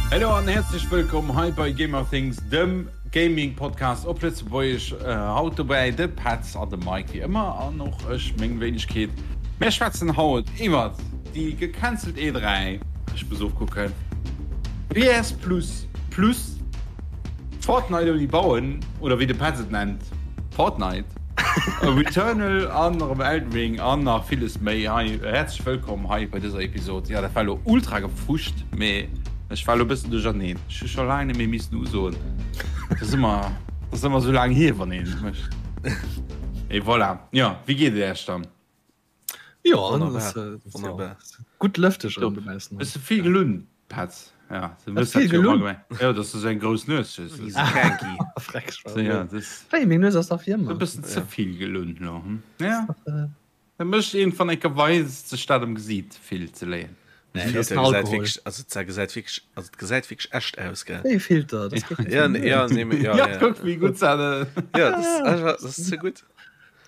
Hello an häerzlech wëllkomm hei bei Gamerthings, dem Gaming Podcast op Lëtzebuergesch. Haut dobäi de Petz an de Mike wéi ëmmer an och ech, meng Wéinegkeet. Mär schwätzen haut iwwert déi gecancelt E3, ech muss ofkucken, PS Plus Plus, Fortnite ouni bauen oder wéi de Petz et nennt, Fortnite, Returnal an erëm Elden Ring an nach villes méi. Hei häerzlech wëllkomm hei bei dëser Episod. Jo dat war elo ultra gefuscht, mee ech war elo e bëssen duercherneen. Ech hu scho laang net méi missen usoen. Dat ass ëmmer, dat ass ëmmer esou laang hier, wann een et mécht. Et voilà. Jo, wéi geet et Iech dann? Jo, wonnerbar, wonnerbar. Gutt lëfteg erëm dobaussen. Hues de vill gelunn, Petz? Ja, du hues dat jo ëmmer gemengt. Jo, dass du esou eng grouss Nues hues. Freck, Wéi, meng Nues ass dach wéi ëmmer. E bëssen ze vill gelunn elo, hm? Ja. Dat mécht een van enker weis sech dat am Gesiit vill ze léien. Nee, dat ass den Alkohol. Also dat gesäit wierklech, also dat gesäit wierklech echt aus, gell? Wéi e Filter, dat geet net. Ja, ja, nee, mee, ja, ja. Kuck wéi gutt dat. Ja, dat ass einfach, dat ass ze gutt.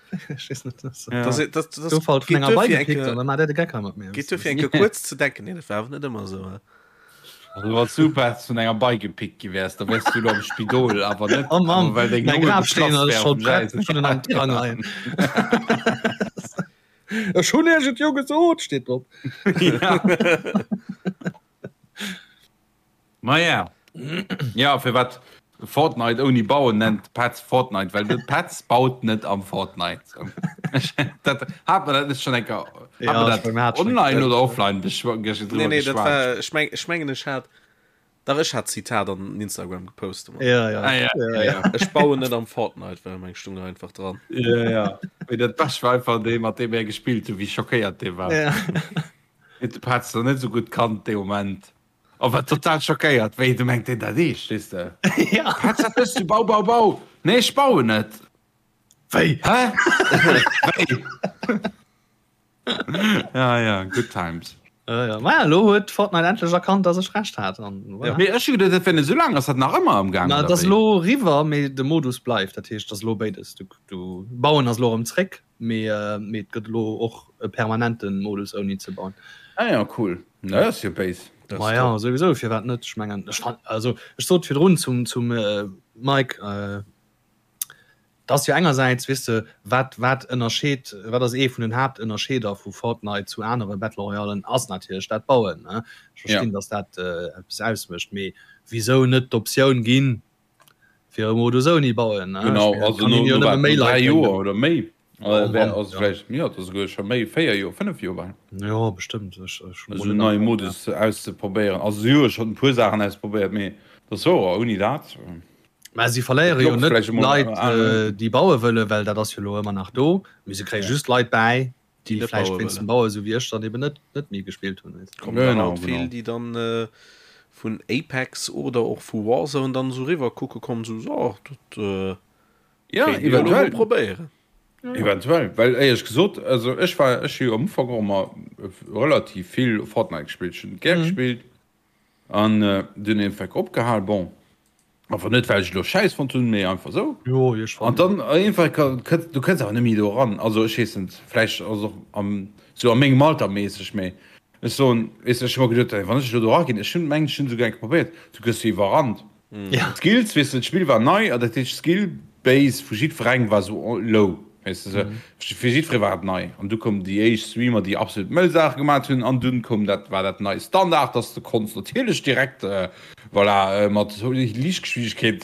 Ech weess net, dat ass. Dat, dat, dat Gouf halt vun enger Bei gepickt an da maacht der de Geck hei mat mir. Geet duerfir eng Kéier kuerz ze denken, nee, dat war awer net ëmmer esou, he? Also wann s du Petz vun enger Bei gepickt gi wäers, da wäers du elo am Spidol, awer net Oh Mann, well deng mäi Longe Grafsteen geplatzt ass wär scho op dem prett, Gäis. ech hunn en am Tirang leien. Ech hunn iech et jo gesot, steet drop. Ja. Maja. Ja, firwat Fortnite ouni bauen nennt Petz Fortnite, well de Petz baut net am Fortnite. Dat hat mer dat net schon enker Ja, hat ech mer meng, mer dat hat schon online enker. oder offline beschw Nee, drüber nee, dat geschwat? war, ech meng, ech mengen, ech hat, dach, ech hat d'Zitat an Instagram gepost. Ja, ja. Ah, ja, ja, ja. Ech bauen net am Fortnite, well meng stung einfach dran. Ja, ja. Mee dat Bescht war einfach dee, mat deem er gespillt huet, wéi schockéiert dee war. Ja. Huet de Petz nach net esou gutt kannt dee Moment. A war total schockéiert, wéi du mengt deen dat eescht, weess de? Ja. Petz, wat méchs du? Bau, bau, bau! Nee, ech bauen net! Wéi? Hä? Wéi? Ja, ja, good times. Ja, ja. Maja, elo huet Fortnite endlech erkannt, dass ech Recht hat. An voilà. Mee ech hu geduet, dat wär net esou laang. Ass dat nach ëmmer am Gaang, Na, oder et ass wéi? elo eriwwer, mee de Modus bleift. Dat heescht, et ass elo béides. Du, du, Bauen ass elo erëm zréck, mee, mee et gëtt elo och e permanente Modus ouni ze bauen. Ah ja, cool. Na, dat ass jo béis. Dat ass Maja, top. souwisou, firwat net? Ech mengen, ech fan, also ech sot virdrun zum, zum Mike, Et ass jo engersäits, weess de, wat, wat ënnerscheet, wat ass ee vun den Haaptënnerscheeder vu Fortnite zu anere Battle Royalen, ass natierlech dat Bauen, ne? Ech verstinn, datt dat eppes ausmécht, mee wisou net d'Optioun ginn, fir e Modus ouni Bauen, ne? Ech Genau, mengen, et also kann no, een jo no nëmme wat, méi no Leit 3 bréngen. Joer oder méi, Oh wär, Mann, also ja. vläicht, jo, et ass esouguer scho méi, 4 Joer, 5 Joer bal. Jo, bestëmmt, ech, ech hunn Esou mol en net neie am Kapp, ja. Modus auszeprobéieren. Also si hu jo schonn e puer Saachen ausprobéiert, mee dat ass wouer, ouni dat. Mä si verléiere jo Klopft net vläicht emol Leit, an. déi baue wëllen, well dat ass jo elo ëmmer nach do. Mee se kréie just Leit bäi, Déi déi net vläicht baue wéinst dem wëllen. Baue, esou wéi ech, dann eben net, net méi gespillt hunn. Weess de. Kommen der Genau, haut vill, genau. déi dann vun Apex oder och vu Warzone dann esou riwwer kucke kommen, esou, so, dat Ja, kéint ee jo elo mol eventuell. probéieren. Eventuell, well éierlech gesot, also ech war, ech hu jo am Ufank och ëmmer relativ vill Fortnite gespillt. Ech hunn et gär gespillt. An dunn iergendwéi opgehal, bon, awer net well ech elo schäiss fonnt hunn, mee einfach esou. Jo, ech An fannen dann iergendwei kënns du kënns awer net méi do eran. Also ech weess net, vläicht ass och am sou a mengem Alter méisseg, mee ech soen, weess de, ech hu mer geduet, wann ech elo do eraginn, ech hunn mengen ech hunn esouguer eng Kéier probéiert, du gëss jo iwwerrannt. Ja. D'Skills, weess de, d'Spill war nei an dat heescht d'Skill Base vu jiddwerengem war esou low. Weess de, fir jiddweree war et nei. An du koumen déi éischt Streamer, déi absolut mëll Saache gemat hunn. An dunn koum dat, war dat nei Standard, dass de konns natierlech direkt, voilà, mat Liichtgeschwindegkeet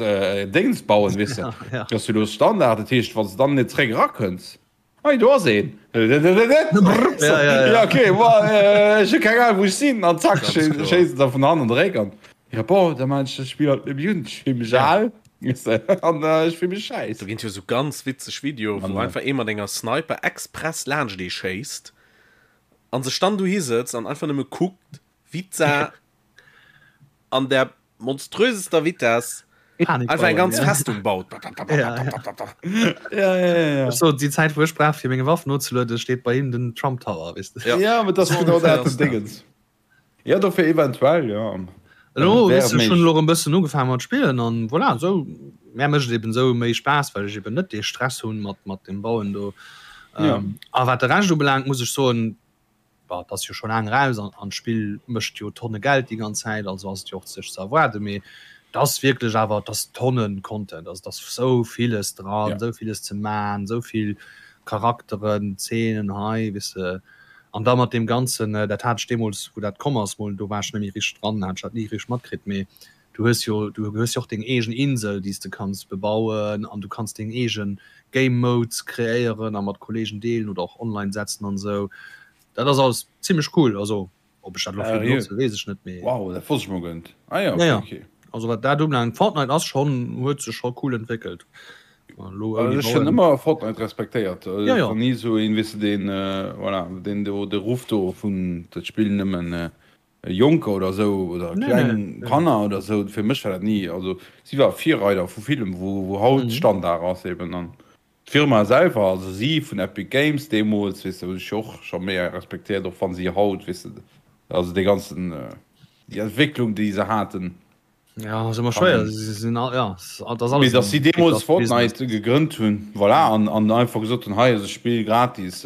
Déngens bauen, weess de. Dat ass jo elo Standard. Dat heescht, wann s de dann net zréck erakënns, hei do ass een, ja, okay, bon, ech hu keng Ahnung, wou ech sinn. An zack, schéiss se der vun hannen de Réck an. Ja bon, da maan ech dat Spill halt net méi un, ech fill mech al an ech fill mech schäiss. Do ginn et jo sou ganz witzeg Videoe wou einfach ee mat enger Sniper express laanscht ee schéisst an sech dann dohi sëtzt an einfach nëmme kuckt wéi d'Sa an der monströsester Vitess einfach eng ganz Festung baut. Ja, ja, ja. Ech sot, déi Zäit wou ech brauch fir meng Waff nozelueden, steet bei him den Trump Tower, weess de. Ja, mee dat ass genau dat den Dingens. Ja dofir eventuell ja. Elo weess ech hunn elo erëm bëssen ugefaangen mat spillen an voilà esou mär mécht et eben esou méi Spaass well ech eben net dee Stress hunn mat mat dem Bauen do. Ja. A wat de Rescht ubelaangt muss ech soen. Bah, et ass jo scho laang eraus an an d'Spill mécht jo Tonne Geld déi ganz Zäit, also ass et jo och sech ze erwaarden. Mee et ass wierklech awer, et ass Tonnen Content, also et ass sou villes dran, sou villes ze man, sou vill Charakteren, Zeenen hei, weess de. An da mat deem Ganzen, dat hat ech deemools, wou dat komm ass, mol, do war ech net méi richteg dran, hat ech dat ni richteg matkritt, mee du hues jo, du hues jo och deng eegen Insel, déi s de kanns bebauen an du kanns deng eege Game Modes kreéieren a mat Kollegen deelen oder och online setzen an esou. Dat ass alles zimmlech cool. Also ob ech dat elo vill benotzen, weess ech net, mee. Wow, dat wosst ech mol guer net. Ah jo, okay, okay. Also wat dat ubelaangt, Fortnite ass schonn, huet sech scho cool entwéckelt. Ech hunn ëmmer Fortnite respektéiert. Ja, ja. Ni sou een, weess de, deen, voilà, deen do de Ruff do vun dat spillen nëmmen Jonker oder sou oder kleng Kanner oder sou. Fir mech war dat ni, also si war Virreider vu villem, wou wou haut Standard ass eben. An d'Firma selwer, also si vun Epic Games deemools, weess de, hunn ech jo och scho méi respektéiert, och wann si haut, weess de, also dee ganzen, déi Entwécklung déi se haten. Ja, ass ëmmer schwéier. Si sinn all, ja, dat ass alles. Mee dass si deemools Fortnite gegrënnt hunn, voilà, an, an einfach gesot hunn, hei ass e Spill gratis,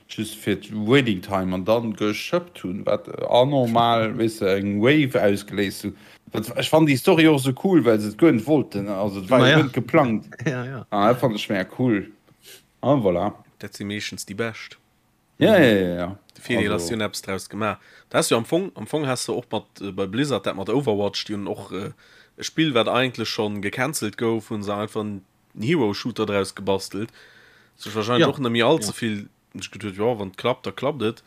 just fir d'Waiting Time, an dann geschëppt hunn, wat anormal, weess de, eng Wave ausgeléist hunn. Dat, ech fannen déi Story och esou cool, well se et guer net wollten, also et war jo guer net geplangt. Ja, ja. An dat fannen ech mega cool. An voilà. Dat si meeschtens déi bescht. Ja, ja, ja, ja. De Virdeel ass, si hunn eppes draus gemaach. Da has du am Fong, am Fong has de och mat bei Blizzard dat mat Overwatch, déi hunn och e Spill, wat eigentlech schonn gecancelt gouf, hunn se einfach en Hero-Shooter draus gebastelt. Sech wahrscheinlech och net méi all ze vill sech geduet, jo, wann et klappt, da klappt et.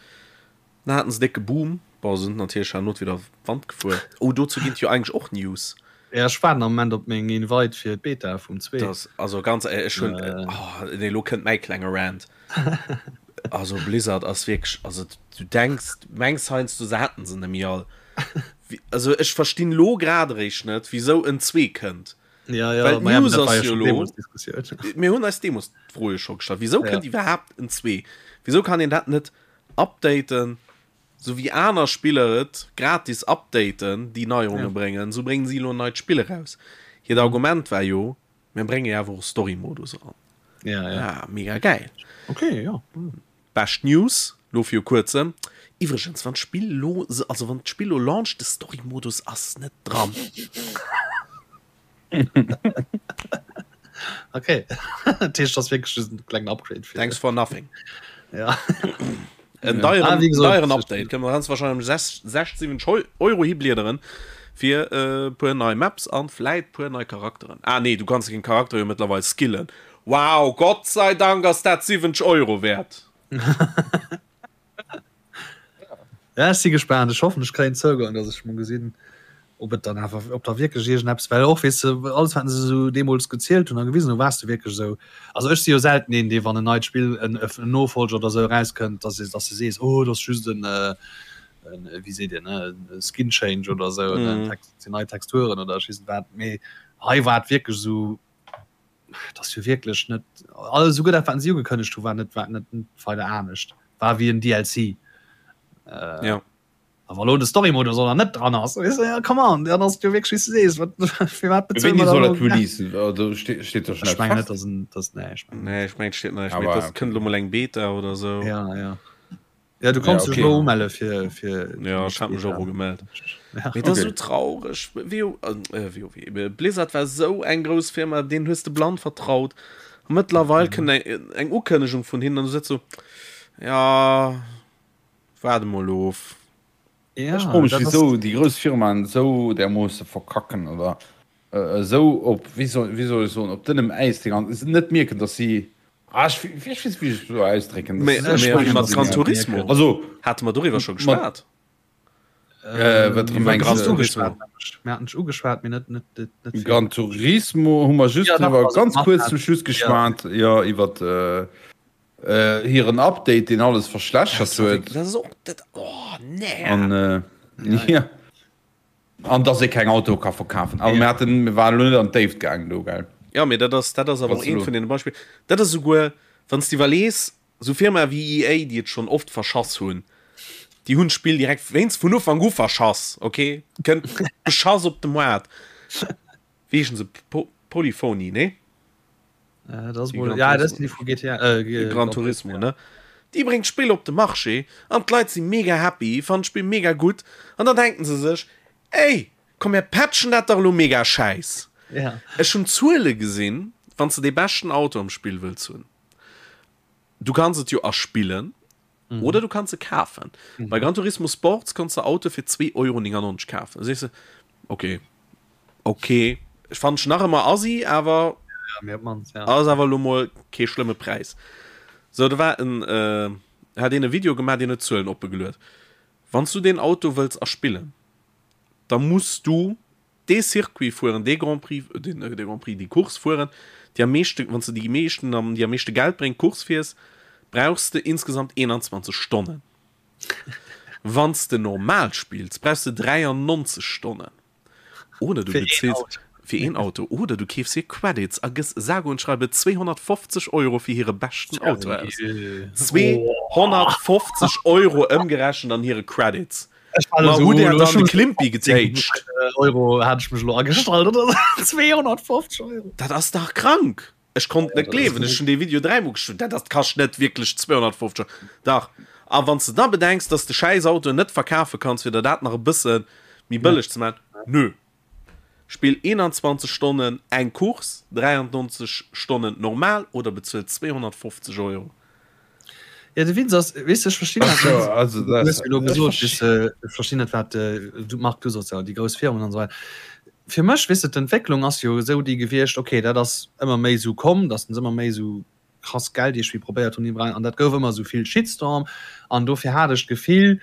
Dann haten se décke Boom. Bon, se sinn natierlech herno wieder Wand gefuer. Oh, dozou ginn et jo eigentlech och News. Ja, ech waarden am Moment op meng Invite fir d'Beta vum 2. Das, also ganz éierlech, ech hunn, oh, nee, elo kënnt mäi klenge Rant. Also Blizzard ass wierklech, also du denks, mengs heiansdo se hätten se net méi all. Also ech verstinn elo grad eréischt net, wisou en 2 kënnt. Ja, ja, Well d'News ass jo elo, mir hunn eis deemools d'Fro jo scho gestallt, wisou kënnt iwwerhaapt en 2? Wisou kann een dat net updaten? Sou wéi aner Spiller et gratis updaten, déi Neierunge bréngen, sou bréngen si elo en neit Spill eraus. Hiert Argument war jo, mir brénge jo awer och Story-Modus eran. Ja, ja. Ah, mega gäil. Okay, ja. Bescht News lo viru kuerzem. Iwwregens, wann d'Spill lo, also wann d'Spill lo launcht, de Story-Modus ass net dran. Okay. Dat heescht, das wierklech just en klengen Upgrade fir. Thanks for nothing. Ja. En deieren, Ah, wéi gesot, deieren Update. Kënne mer ganz wahrscheinlech 6, 7 Euro hibliederen fir e puer nei Maps an vläit puer nei Charakteren. Ah nee, du kanns den Charakter jo mëttlerweil skillen. Wow, Gott sei Dank ass dat 70 Euro wäert. Ja, ech si gespaant. Ech hoffen, ech kréien Zougang, dass ech mol gesinn, ob et dann awer, ob da wierklech iergendeppes, well och, weess de, alles, wat se esou deemools gezielt hunn a gewisen hunn, waars de wierklech esou. Also ech si jo selten een, dee wann en neit Spill, en en Nofolger oder esou erauskënnt, dass dass de sees, oh, dat ass just en, en, wéi seet een, e Skin Change oder esou, en Text, sinn nei Texturen oder ech weess net wat. Mee hei war et wierklech esou, Dat ass jo wierklech net alles esouguer dat wat si ugekënnegt hu war net war net weider anescht war wéi en DLC. Äh, ja. Awer lo de Story-Modus oder net dran ass weißt du, ja, come on, dann ass jo wierklech wéi s du sees wat fir wat bezuele Wéini mer soll dann dat releasen? Also ste steet do schon Ech eppes mengen net fest? dass en dass nee ech mengen Nee, ech mengen steet nach Aber net. okay. Dat kënnt lo mol eng Beta oder sou. Ja ja. Ja, du konns Ja, dech okay. elo umelle fir fir Ja, ech hat mech och ugemellt. Ja. Mee dat ass Okay. esou traureg. WoW, äh, WoW, Blizzard war esou eng grouss Firma, deenen hues de blann vertraut. A mëttlerweil kënnt eng, eng Ukënnegung vun hinnen an du sëtz sou, ja, waarde mol of. Ja, Ech froe mech, dat ass wisou déi grouss Firmaen esou därmoosse verkacken oder esou op, wéi soll, wéi soll ech soen, op dënnem Äis déi ganz, net mierken, datt si Ah, ech, ech weess net, wéi ech et soll ausdrécken. Mee, Das mee ist wéi mat Gran Turismo? Also, Hate mer doriwwer scho geschwat? Äh, wat Iwwer mengst Gran du? Turismo. Mir haten ugeschwat, mee net, net, net, net vill. Gran Turismo hu mer just Ja, dach, driwwer also ganz mat kuerz hat- zum Schluss geschwat, ja, iwwer äh, äh, hiren Update, deen alles verschlechtert huet. Dat ass och, dat, oh, nee. An, äh, ja. An dass ee keng Autoe ka verkafen. Awer mir haten, mir waren elo net an d'Déift gaangen do, gell? Jo, mee dat ass, dat ass awer och eent vun deene Beispiller. Dat ass esouguer, wann s de iwwerlees, esou Firmae wéi EA, déi et schonn oft verschass hunn, déi hunn d'Spill direkt wéinst vun Ufank u verschass, okay? Kënnt beschass op de Moart. Wéi heeschen se? Polyphony, nee? Äh, das wohl, ja, das sind die von GTA. Äh, Gran Turismo, ne? Déi bréngt d'Spill op de Marché an d'Leit si mega happy, fannen d'Spill mega gutt an dann denken se sech, Ey, komm mir patchen dat dach elo mega schäiss. Ech hunn Zuele gesinn, wann s de dee beschten Auto am Spill wëlls hunn, du kanns et jo erspillen oder du kanns e kafen. Bei Gran Turismo Sports konns de Autoe fir 2,99 Euro kafen. Da sees de, ok, ok, ech fannen ech nach ëmmer assi, awer ass awer elo mol kee schlëmme Präis. Sou, do war en, hat een e Video gemaach, deen huet d'Zuelen oppe geluet. Wann s du deen Auto wëlls erspillen, da muss du dee Circuit fueren, dee Grand Prix, deen, dee Grand Prix, déi Course fueren, déi am meeschte, wann s de déi meeschten, déi am meeschte Geld bréngt, Course fiers, brauchs de insgesamt 21 Stonnen. Wann s de normal spills, brauchs de 93 Stonnen. Oder du bezills fir een Auto oder du keefs hir Credits a gëss sage und schreibe 250 Euro fir hire beschten Auto aus. 250 Euro ëmgerechent an hire Credits. Ma hutt Där dann de Klimpi getéitscht? Euro hat ech mech elo agestallt oder 250 Euro. Dat ass dach krank! Ech konnt net gleewen, ech hunn dee Video dräimol gekuckt, dat ass kascht net wierklech 250 Euro. Dach. A wann s de da bedenks, dass de schäiss Autoen net verkafe kanns, fir der dat nach e bësse méi bëlleg ze maachen, nö. Spill 21 Stonnen eng Course, 93 Stonnen normal oder bezuel 250 Euro. Jo, de Witz ass, weess de, ech verstinn dat net. Also, du hues jo elo gesot, weess de, ech verstinn net, wat du, Marc, du soss jo, déi grouss Firmen an esou weider. Fir mech, weess de, d'Entwécklung ass jo esou déi gewiescht, okay, dat ass ëmmer méi esou komm, datt se ëmmer méi esou krass Geld iergendwéi probéiert hunn iwwerall, an dat gouf ëmmer esou vill Shitstorm an dofir hat ech d'Gefill,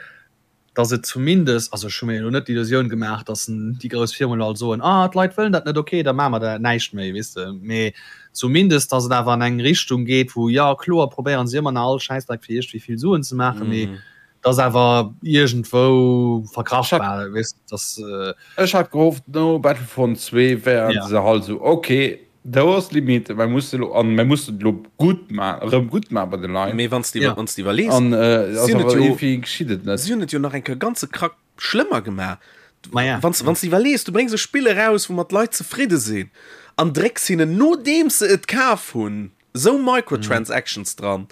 dass et zumindest, also ech hu mir elo net d'Illusioun gemaach, dass déi grouss Firmen elo all soen, ah d'Leit wëllen dat net, okay, da maache mer da näischt méi, weess de, mee zumindest, dass et awer an eng Richtung geet, wou, jo kloer probéieren se ëmmer nach all Schäissdreck fir iergendwéi vill Suen ze maachen, mee dass awer iergendwou verkraftbar, weess de, dass. Ech hat gehofft no Battlefront 2 wären se halt esou, okay, Do ass d'Limite, mer musse lo, an mer mussen et lo gutt ma, erëm gutt maachen bei de Leit. Mee wann s de iwwer, wann s de iwwerlees, An ass si hunn et awer jo, iergendwéi geschitt et net. si hunn et jo nach eng Kéier ganze Krack schlëmmer gemaach. Ma ja. Wann s, wann s de iwwerlees, du bréngs e Spill eraus, woumat d'Leit zefridde sinn, an drécks hinnen, nodeems se et kaf hunn, esou Microtransactions dran.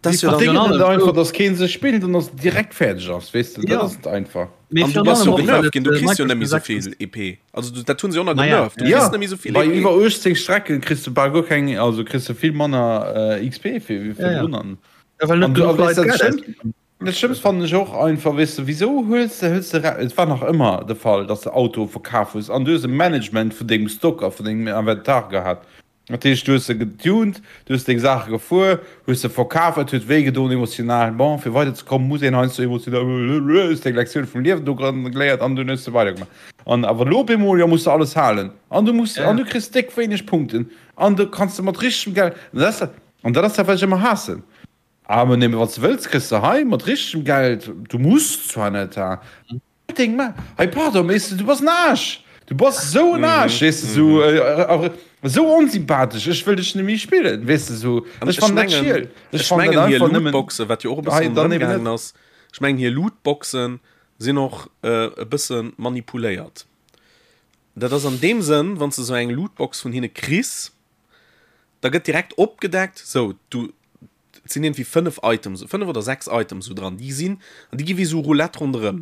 Das jo dann net einfach dass keen se spillt an ass direkt fäerdeg ass weess de dat ass et einfach. An du bass jo genervt ginn, du kriss jo net méi souvill EP. Also du, dat hunn se och nach genervt, du kriss net méi souvill EP. Bei iwwer 18 Strecken kriss du bal guer keng, also kriss du vill manner XP fir wéi virdrun an. Ja, well net genuch Leit Geld ausginn. Dat Schlëmmst fannen ech och einfach, weess de, wisou hues de, hues de, et war nach ëmmer de Fall, dass de Autoe verkaf hues an du hues e Management vun dengem Stock a vun dengem Inventar gehat. Dat heescht, du hues se getuned, du hues deng Saache gefuer, hues se verkaf, et huet wéi gedoen emotional. Bon, fir weider ze kommen, muss een heiansdo emotional, hues deng Lektioun vum Liewen do geléiert an dunn hues de weidergemaach. An awer elo op eemol, jo, muss de alles halen an du muss, an du kriss déck wéineg Punkten an du kanns de mat richtegem Geld, an dat ass dat, an dat ass dat, wat ech ëmmer haassen. Ah, mä nëmme wann s de wëlls, kriss de hei mat richtegem Geld, du muss zwar net, ha. Deng Ma hei pardon mee du bass en Aarsch du bass esou en Aarsch weess de sou esou onsympathesch ech wëll dech net méi spillen weess de sou ech fannen dat schiel ech fannen dat einfach nëmmen Lootboxen wat jo och e bëssen ronderëm gaangen ass ech mengen hir Lootboxen sinn och e bësse manipuléiert dat ass an deem Sënn wann s de sou eng Lootbox vun hinne kriss da gëtt direkt opgedeckt sou du Et sinn iergendwéi 5 Items, 5 oder 6 Items esou dran, déi sinn, an déi gi wéi esou Roulette ronderëm.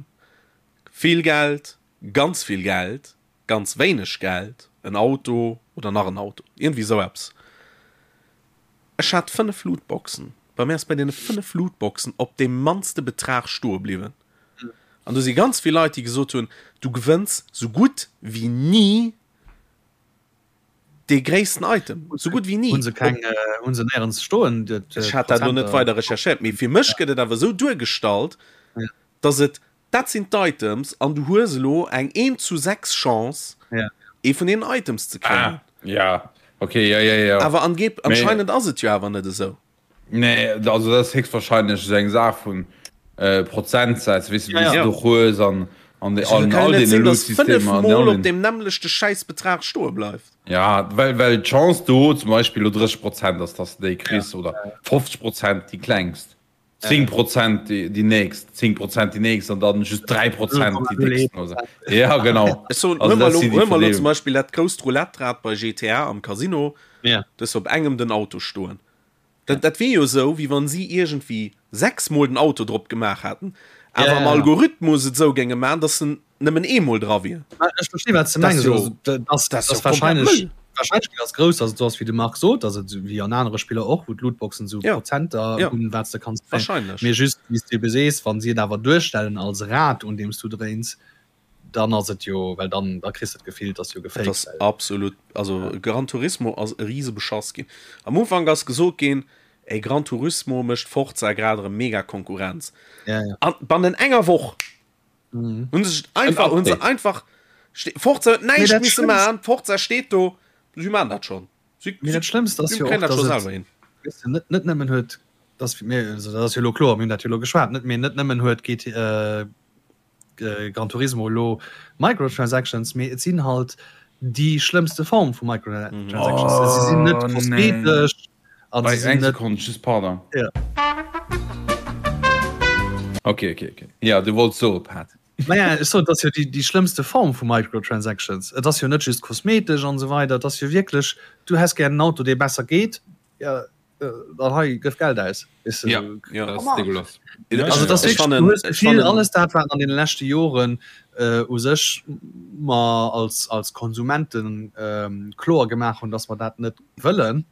Vill Geld, ganz vill Geld, ganz wéineg Geld, en Auto oder nach en Auto, iergendwéi esou eppes. Ech hat 5 Lootboxen, bei mir ass bei deene 5 Lootboxen op deem mannste Betrag stoe bliwwen. An do si ganz vill Leit, déi gesot hunn, du gewënns sou gutt wéi ni Dee gréissten Item, sou gutt wéi ni. Hunn se keng, hunn se néierens stoen? Ech hat dat elo net weider recherchéiert, mee fir mech gëtt et awer esou duergestallt, dass et, dat sinn d'Items an du hues elo eng eent zu 6 Chance, ee vun deenen Items ze kréien. Ah, ja, okay, ja, ja, ja. Awer angeeb, anscheinend ass et jo awer net esou. Nee, also dat ass héchstwahrscheinlech esou eng Saach vun Prozentsätz, weess de, wéi s de do hues an an Also all kann jo net deene sinn, dass Loot-Systemer an fënnefmol all op den. deem nämmlechte Schäissbetrag stoe bleift. Ja, well well d'Chance do zum Beispill elo 30 Prozent ass, dass de déi kriss oder 50 Prozent déi klengst, 10 Prozent déi déi nächst, 10 Prozent déi nächst an dann just 3 Prozent déi décksten oder sou. Ja, genau. Ech soen, Also huel mer dat elo si déi huel mer elo zum Verdeelung. Beispill dat grousst Roulette-Rad bei GTA am Casino, Ja. du hues op engem den Auto stoen. Dat, dat wier jo esou, wéi wann si iergendwéi 6 mol den Auto drop gemaach hätten, awer am Algorithmus et esou géinge maachen, dass en nëmmen eemol dra wier. Ech versti wat s de mengs. Dat ass jo komplett Mëll. D'Warscheinlechkeet ass grouss, dass et esou ass, wéi de Marc sot, dass et wéi an anere Spiller och, wou d'Lootboxen esou Prozenter hunn, wat s de kanns kréien. Mee just, wéi s de ebe sees, wa si et awer duerstellen als Rad, un deem s du dréins, dann ass et jo, well dann da kriss de d'Gefill, et ass jo gefaked. Et ass absolut, also Gran Turismo ass e rise Beschass ginn. Am Ufank ass gesot ginn, ey Gran Turismo mécht Forza grad erëm mega Konkurrenz. Ja, ja. An bannent enger Woch mhm. hunn se einfach, hunn se einfach, Forza huet näischt misse maachen, Forza steet do, si maachen dat schonn. Si, Mee dat Schlëmmst ass jo och, dass et, weess de, net, net nëmmen huet, dass mir, also dat ass jo elo kloer, mir hunn dat jo elo geschwat, net, mee net nëmmen huet GT, äh, Gran Turismo elo Microtransactions, mee et sinn halt déi schlëmmste Form vu Microtransactions. Oh, si sinn net kosmetesch. An si sinn net. Sekonn, just pardon. Ja. Okay, okay, okay. Ja, du wollts soe, Pat. Naja, ech soen, et ass jo déi, déi schlëmmste Form vu Microtransactions. Et ass jo net just kosmetesch an esou weider, et ass jo wierklech, du häss gär en Auto, dee besser geet, ja, dann hei gëff Geld aus. Weißt du, ja, ja, das ist dégueulasse. Also das ist wirklich, du hues d'Gefill, alles dat wat an den leschte Joren äh, u sech mer als, als Konsumenten ähm, kloer gemaach hunn, dass mer dat net wëllen,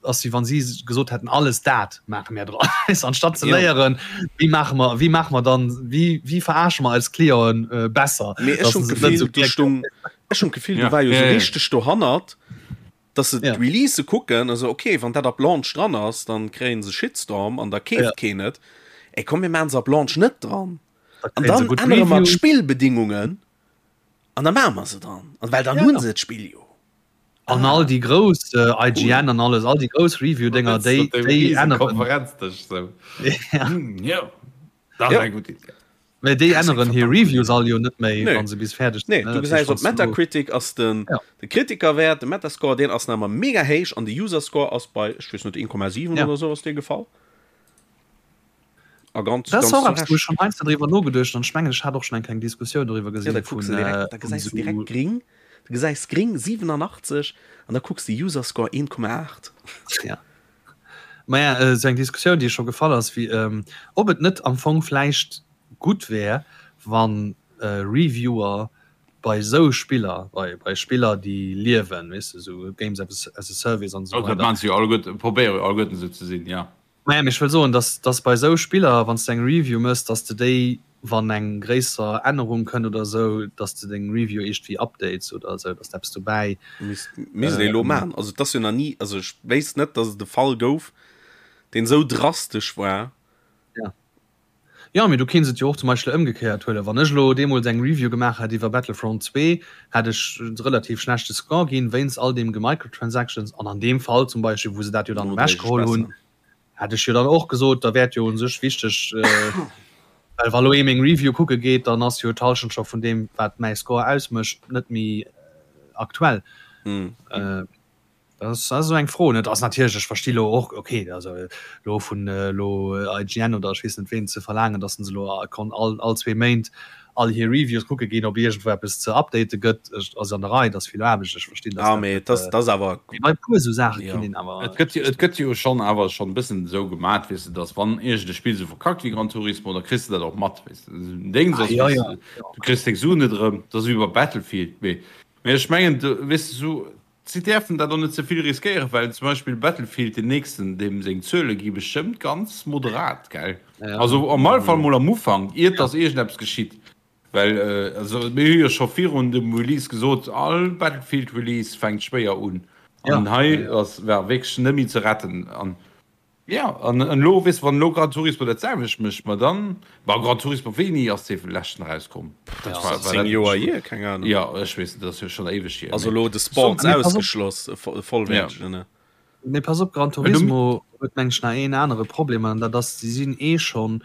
ass wéi wann si gesot hätten, alles dat maache mir dran. Anstatt ze léieren, wéi maache mer, wéi maache mer dann, wéi, wéi verarsche mer eis Clienten äh, besser. Mee ech hunn d'Gefill, du stung, ech hunn d'Gefill, du war jo sou richteg dohannert, dass se d'Releasë kucken a sou, ok, wann dat ab Launch dran ass, dann kréien se Shitstorm an da keeft keen et. Ey, komm mir maachen se ab Launch net dran. An dann ännere mer d'Spillbedingungen an da maache mer se dran. An well dann hunn se d'Spill jo. An all déi grouss IGN an alles, all déi grouss Review-Dénger, déi änneren. Konferenzdësch sou. Jo, dat ass eng gutt Iddi. Mä déi änneren hir Reviews all jo net méi, wa se bis fäerdeg sinn. Nee, du gesäis op Metacritic ass den de Kritikerwäert, de Metascore, deen ass nach ëmmer mega héich an de Userscore ass bei, ech weess net, 1,7 oder esou ass dee gefall. A ganz, Dat ass och eppes, wou ech schonn heiansdo driwwer nogeduecht hunn an ech mengen, ech hat och schonn eng kleng Diskussioun doriwwer gesinn. Ja, da kucks de direkt, da gesäis de direkt gring, du gesäis gring 87 an da kucks de Userscore 1,8. Ja. Maja, esou eng Diskussioun, déi scho gefall ass, wéi ob et net am Fong vläicht gutt wär, wa Reviewer bei esou Spiller, bei bei Spiller, déi liewen, weess de, esou Games as a Service an esou weider. Dat maachen se jo alleguerten, probéiere jo alleguerten esou ze sinn, jo. Maja, mee ech wëll soen, dass dass bei esou Spiller, wann s de eng Review méchs, dass de déi, wann eng gréisser Ännerung kënnt oder esou, dass de deng Review iergendwéi updates oder esou, dass de eppes dobäi. Misst misst ee elo maachen. Also et ass jo nach ni, also ech wéisst net, dass et e Fall gouf, deen esou drastesch war. Ja. Jo, mee du kéints et jo och zum Beispill ëmgekéiert huelen. Wann ech elo deemools eng Review gemaach hätt iwwer Battlefront 2, hätt ech e relativ schlechte Score ginn, wéinst all deem Gemicrotransactions an an deem Fall zum Beispill, wou se dat jo dann ewechgeholl hunn, Hätt ech jo dann och gesot, da wär et jo un sech wichteg, well wa lo ee meng Review kucke geet, dann ass jo d'Halschent scho vun deem, wat mäi Score ausmécht, net méi aktuell. Dat ass esou eng Fro, net? Ass natierlech, ech versti lo och, okay, also elo vun elo IGN oder ech weess net ween ze verlaangen, datt se elo all all zwee Méint all hir Reviews kucke ginn, ob iergendwou eppes ze update gëtt, ass an der Rei, et ass vill Aarbecht, ech verstinn, dass dat net. Ah, mee awer. Mee bei e puer esou Saache kinnt een awer. Et gëtt jo, et gëtt jo schonn awer schonn e bëssen esou gemat, weess de, dass wann iergend e Spill esou verkackt wéi Gran Turismo, da kriss de dat och mat, weess de. Deng ass, weess de, du kriss deng Suen net erëm, dat ass wéi bei Battlefield. Mee, mee ech mengen, weess de, esou. Si däerfen dat och net ze vill riskéieren, well zum Beispill Battlefield, deen nächsten, deem seng Zuele gi bestëmmt ganz moderat, gell? Also am alle Fall mol am Ufank, iert dass iergendeppes geschitt. Well also mir hu jo scho virun dem Release gesot, all Battlefield Release fänkt schwéier un. An hei ass war wierklech net méi ze retten. An Jo, an elo, weess de, wann elo Gran Turismo dat selwecht mécht, ma dann, ma Gran Turismo, wéini ass dee leschten erauskomm? Dat war, war 10 Joer hier, keng Ahnung. Jo, ech weess net, dat ass jo schonn éiweg hier. Also elo de Sports ausgeschloss, e vollwäertegen, ne? Mee pass op, Gran Turismo huet meng ech nach een anere Problem, an dat ass, si sinn eh schonn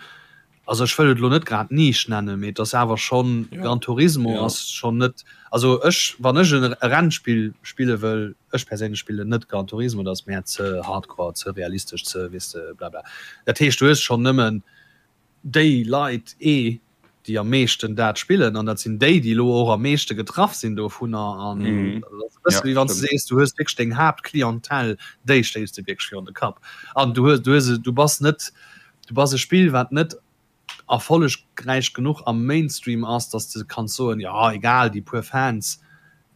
Also ech wëll et elo net grad Nisch nennen, mee et ass awer schonn, Gran Turismo ass schonn net, also ech, wann ech e Rennspill spille wëll, ech perséinlech spillen net Gran Turismo, dat ass mär ze hardcore, ze realistesch, ze weess de blabla. Dat heescht du hues schonn nëmmen déi Leit ee. déi am meeschten dat spillen an dat sinn déi, déi elo och am meeschte getraff sinn dovunner. An dat ass e bësse wéi wann s de sees, du hues wierklech deng Haaptclientèle, déi stéiss de wierklech virun de Kapp. An du hues, du hues, du bass net, du bass e Spill, wat net erfollegräich genuch am Mainstream ass, datt s de kanns soen, jo egal, déi puer Fans.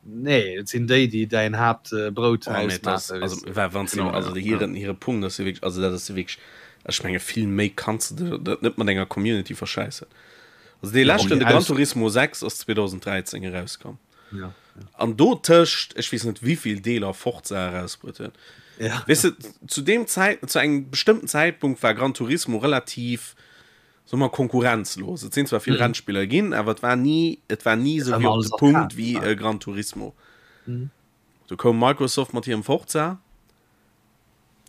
Nee, et sinn déi, déi däin Haaptbrout Oh, nee, das, ausmaachen, also, weess de. wa- wann sie, Genau, also ja, hiren, ja. hire Punkt ass jo wierklech, also dat ass jo wierklech, ech menge vill méi kanns de der dat net mat enger Community verschäissen. Also dee Ja, leschten, déi de Gran Aus Turismo 6 ass 2013 erauskomm. ja, An do tëscht, ech weess net wéivill Deeler Forza erausbruet huet. ja. Weess de, zu deem Zäit, zu engem bestëmmten Zäitpunkt war Gran Turismo relativ, soe mer, konkurrenzlos. Et sinn zwar vill Rennspiller ginn, awer et war ni, et war ni esou War wéi ëmmer op alles de Punkt arcade, wéi ja. e Gran Turismo. Du koum Microsoft mat hirem Forza,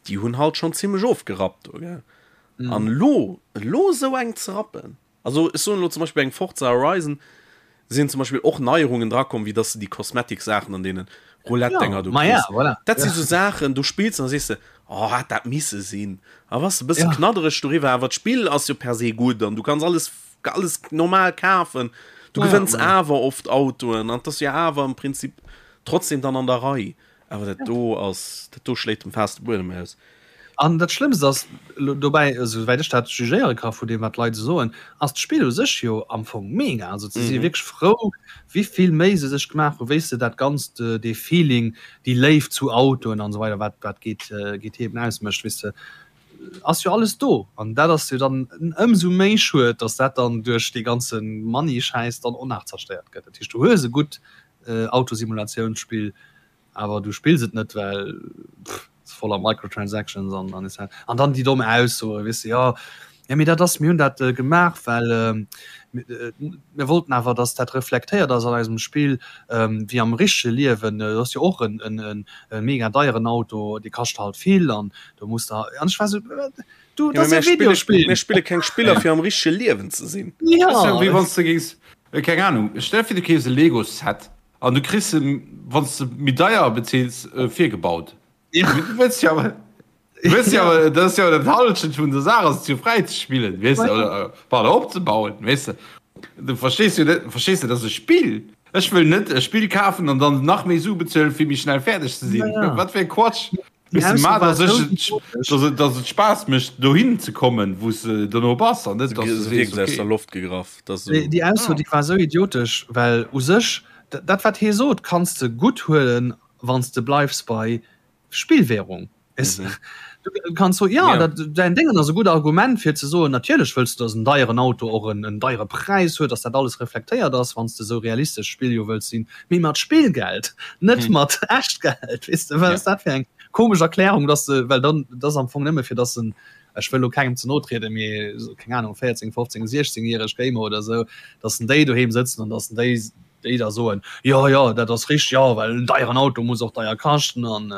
déi hunn halt schonn zimmlech ofgerappt do, gell. An elo, elo esou eng ze rappen, also ech soen elo zum Beispill bei engem Forza Horizon sinn zum Beispill och Neierungen drakomm, wéi dass de déi Cosmetic-Saachen an deene Roulette-Denger do Ma ja, kriss. voilà. Dat si Ja. sou Saachen, do spills de an da sees de, oh, hätt dat misse sinn. A bass e bësse Ja. knaddereg doriwwer, awer d'Spill ass jo per se gutt an du kanns alles, alles normal kafen. Du Ja, gewënns ma ja. awer oft Autoen an 't ass jo awer am Prinzip trotzdem dann an der Rei. Awer dat do ass, dat do schléit dem Faass de Buedem aus. An dat Schlëmmst ass dobäi, esouwäit ech dat jugéiere ka vu deem wat d'Leit esou soen, ass d'Spill u sech jo am Fong mega. Also se si wierklech frou, wéi vill Méi se sech gemaach hu, wéi se dat Ganzt, dee Feeling, déi Léift zu Autoen an esou weider, wat wat GT eben ausmécht, weess de, ass jo alles do. An dat ass jo dann ëmsou méi schued, datt dat dann duerch dee ganze Money-Schäiss dann och nach zerstéiert gëtt. Dat heescht, du hues e gutt Autosimulatiounsspill, Awer du spills et net, well pff, voller Microtransactions an an etc. An dann déi domm Aussoen, weess de, jo, jo mee dat ass, mir hunn dat gemaach, well mir wollten awer, datt dat reflektéiert ass an eisem Spill, wéi am richtege Liewen. Dat ass jo och en en e mega deieren Auto, dee kascht halt vill an do muss der, an ech war esou, du, dat ass e Videospill. Mir spille keng Spiller fir am richtege Liewen ze sinn. Jo. Dat ass jo wéi wann s de géings, keng Anung, stell der vir du keefs e Lego-Set An du kriss se, wann s de méi deier bezills, virgebaut. Ja. Du wëlls jo awer, du wëlls jo awer, dat ass jo dat Halschent vun der Saach, ass et jo fräi ze spillen, weess de, oder, pardon, opzebauen, weess de. Du verstees jo net, verstees de, dat ass e Spill. Ech wëll net e Spill kafen an dann nach méi Su bezuelen, fir méi schnell fäerdeg ze sinn. Ja, ja. Wat fir e Quatsch. Déi Weess de, Ausso ma war dass ech esou et, idiotesch. dass et, dass et Spaass mécht, dohin ze kommen, wou s de dono bass, an net, dass du Se sees, wierkt aus der okay. Loft gegraff. Dat ass Déi, esou. déi Ausso, déi war esou idiotesch, well u sech, dat wat hie sot, kanns de gutt huelen, wann s de bleifs bei Spillwährung. Weess de, du kanns soen, jo, Ja. dat, däin Déngen ass e gutt Argument fir ze soen, natierlech wëlls de, dass en deieren Auto och en, en deiere Präis huet, dass dat alles reflektéiert ass, wann s de esou realistesch Spill jo wëlls sinn. Mee mat Spillgeld, net mat Echtgeld, weess de, wat ass dat fir eng komesch Erklärung, dass de, well dann, dat ass am Fong nëmme fir dass en, ech wëll elo kengem ze no trieden, mee keng Ahnung, 14, 15, 16 järeg Gamer oder esou, dass en déi doheem sëtzen an dass en déi, déi da soen, jo, jo, dat ass richteg, jo, well en deieren Auto muss och deier kaschten an.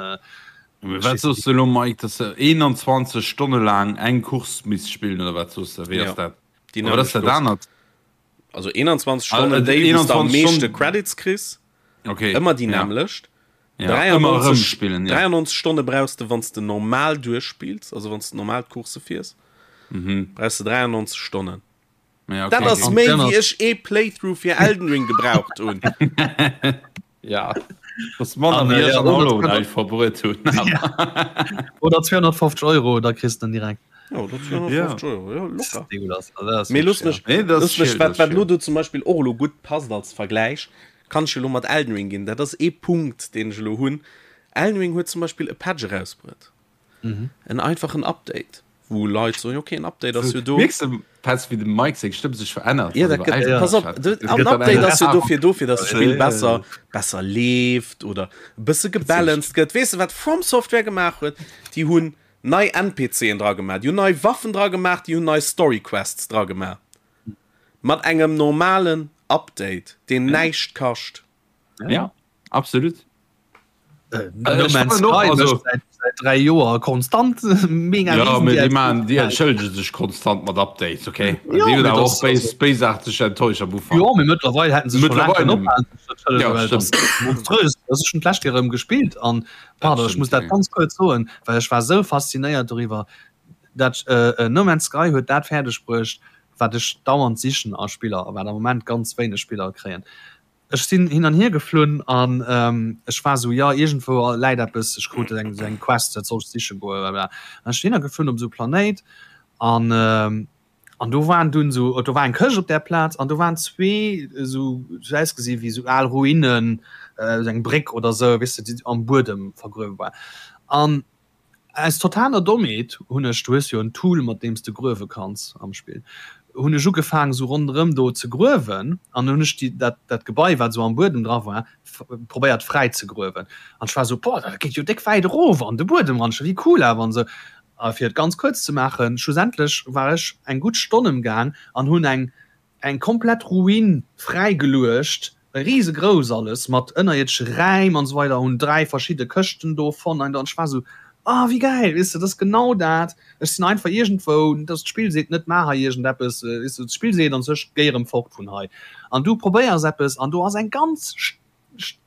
Mee wat soos de elo, Mike, dass de 21 Stonne laang eng Course misst spillen oder wat soos de? Wéi ass dat? Déi Oder wat ass dat nämmlecht anert? Also 21 Stonnen, Ah, déi wou s de am 21 meeschte Stonnen. Credits kriss, Okay. ëmmer déi ja. nämmlecht. Ja, ëmmer erëm 93, spillen, ja. 93 Stonne brauchs de, wann s de normal duerchspills, also wann s de normal d'Course fiers, Mhm. brauchs de 93 Stonnen. Ja, okay, Dat ass okay. méi An wéi ech ee Playthrough fir Elden Ring gebraucht hunn. Ja. Das manner An, wéi äh, ech ja, an oder Hollow 200 Knight verbruet hunn. Oder 250 Euro, da kriss de en direkt. Ja, oder 250 Euro, ja, locker. Degueulass. Also, dat ass Mee looss wirklich, mech, Nee, dat ass looss mech, chill, wat, dat ass wat lo chill. do zum Beispill och elo gutt passt als Vergläich, kann ech elo mat Elden Ring ginn. Dat ass ee Punkt, deen ech elo hunn. Elden Ring huet zum Beispill e Patch erausbruet. En einfachen Update, wou Leit soen, okay, en Update ass jo do. Mierks de, Petz, wéi dem Mike seng Stëmm sech verännert? Ja, dat gëtt, Ja. pass op, du, en Update ass jo dofir do, fir dass d'Spill besser, besser leeft oder e bësse gebalanced gëtt. Weess de, wat From Software gemaach huet? Déi hunn nei NPCen dra gemaach, déi hunn nei Waffen dra gemaach, déi hunn nei Story Quests dra gemaach. Mat engem normalen Update, deen näischt kascht. Ja, absolut. Äh, no Man's Sky also, seit, seit drei Joer konstant mega ja, die, man, die entschëllege sech konstant mat Updates okay ja, die auch béisarteg enttäuscht am Ufang ja, mittlerweile hätten se ja, monströs das ist schon d'lescht Joer erëm gespielt an pardon, ich muss dat ganz kurz soen well ech war so faszinéiert darüber dat äh, äh, No Man's Sky huet dat fäerdeg bruecht. Wat ech dauernd sichen a Spiller a wat am Moment ganz wéineg Spiller kréien. Ech sinn hin an hier geflunn an ech war esou, jo iergendwou läit eppes, ech krut eng esou eng Quest, dat soll ech siche goen, blablabla. An ech sinn hinner geflunn op esou e Planéit an an do waren dunn esou, do war eng Këscht op där Plaz an do waren zwee esou, sou ausgesi wéi esou al Ruinen, esou eng Bréck oder esou, weess de, déi am Buedem vergruewe war. An Aus totaler Dommheet hunn ech, du hues jo en Tool mat deem s de gruewe kanns am Spill, hunn ech ugefaang sou ronderëm do ze gruewen an hunn ech déi dat dat Gebai wat sou am Buedem dra war probéiert fräi ze gruewen an ech war sou boah dat geet jo déck wäit erof an de Buedem ran, wéi cool awer an sou. A fir et ganz kuerz ze maachen, schlussendlech war ech eng gutt Stonn emgaang an hunn eng Eng komplett Ruin fräigeluecht, risegrouss alles mat ënnerierdesche Räim an esou weider, hunn 3 verschidde Këschten do fonnt an ech war esou, ah wéi gäil, weess de, dat ass genau dat, ech sinn einfach iergendwou, dass d'Spill seet net maach hei iergendeppes, weess de, d'Spill seet an sech géi erëm fort vun hei an du probéiers eppes an do ass eng ganz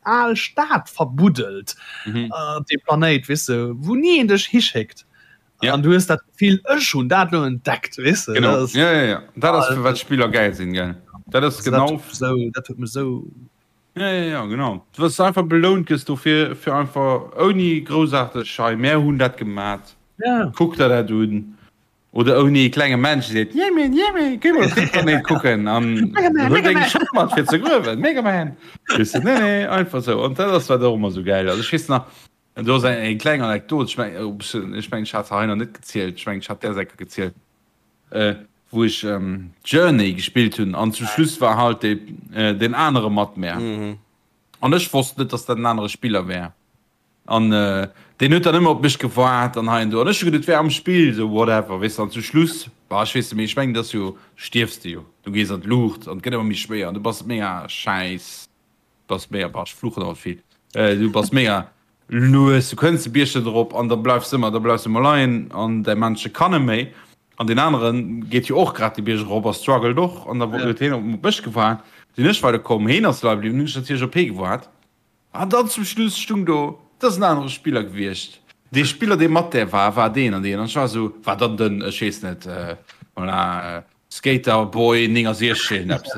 al Stad verbuddelt op deem Planéit, weess de, wou ni een dech hischéckt. Ja. An du hues dat Gefill, ech hunn dat elo entdeckt, weess de. Genau. Dat ass, ja, ja, ja. Dat ass, fir wat Spiller gäil sinn, gell. Dat ass also genau. Dat huet mech sou, dat huet mech sou. Ja, ja, ja, genau. Du wirst einfach belount gëss dofir, fir einfach ouni groussaarteg, hei, mär hunn dat gemat. Ja. Kuck der dat un. Oder ouni e klenge Mensch seet, Jemmi, Jemmi, géi mol op dee Planéit kucken an huet eng Schëpp mat fir ze gruewen, Megaman. Weess de, nee, nee, einfach sou. An dat ass wat och ëmmer sou gäil ass. Ech weess nach, do ass eng eng kleng Anekdot, ech meng, ech meng ech hat se hei nach net gezielt, ech meng ech hat där Säcker gezielt, wou ech Journey gespillt hunn an zum Schluss war halt dee deen anere mat mär an ech wosst net, dass dat en anere Spiller wär. An deen huet dann ëmmer op mech gewaart an hei an do. An ech hu geduet, et wär am Spill, sou whatever, weess de. An zum Schluss, bah, ech weess net méi, ech mengen, et ass jo, stierfs de jo, du gees an d'Luucht an et gëtt ëmmer méi schwéier an du bass mega schäiss, bass mega, bah, ech fluchen alt vill, du bass mega lues, du kënns de Bierg net erop an da bleifs de ëmmer, da bleifs de ëmmer leien an däi Männche kann net méi. An deen anere geet jo och grad de Bierg erop a struggelt och an da huet hien op mech gewaart, sinn ech weiderkomm, heen ass leie bliwwen, hunn ech natierlech op hee gewaart. An dann zum Schluss stung do, et ass en anere Spiller gewiescht. Dee Spiller, dee mat där war, war deen an deen. An ech war esou, war dann den, ech weess net, voilà, Skater Boy 69, eppes.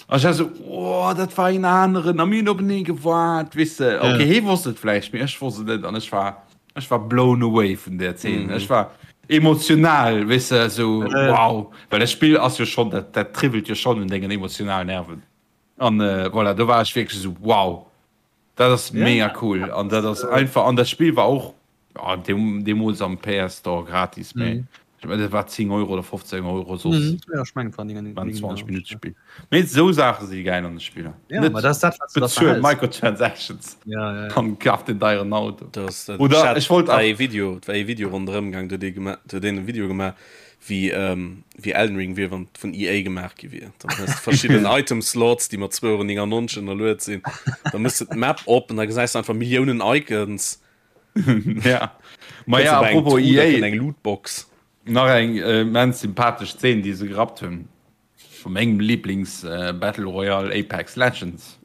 An ech war esou, oh, dat war een aneren. A mir hunn openee gewaart, weess de. Okay, hee wosst et vläicht, mee ech wosst et net. An ech war, ech war blown away vun där Zeen. Ech war emotional, weess de, esou, wow. Well dat Spill ass jo schonn, dat, dat triwwelt jo schonn un dengen emotionalen Nerven. An voilà, do war ech wierklech esou, wow, dat ass mega cool. An dat ass einfach, an dat Spill war och deemools am PS Store gratis, mee ech mengen, dat war 10 Euro oder 15 Euro soss. Ja, ech mengen, et war 9, War en 20 Minutte Spill. Mee esou Saache si gäil an de Spiller. Ja, ma dat ass dat, wat s du da Bezuel verhäls. Microtransactions Ja, ja, ja. an kaf den deieren Auto. Das, dat, Oder ech hat ech wollt war nach. ee Video, et war ee Video ronderëm gaang, do huet ee gema, do huet een e Video gemaach, wéi wéi Elden Ring wier, wann et vun EA gemaach gi wier. Dann hues de verschidden Item Slots, déi mat 2,99 Euro ënnerluet sinn. Da mëss de d'Map op an da gesäis de einfach Milliounen Icons. Ja. Ma Kënns ja, op eng apropos Truh, da EA, kënnt eng Lootbox. nach eng immens sympathesch Zeen, déi se gerappt hunn, vu mengem Lieblings Battle Royale Apex Legends,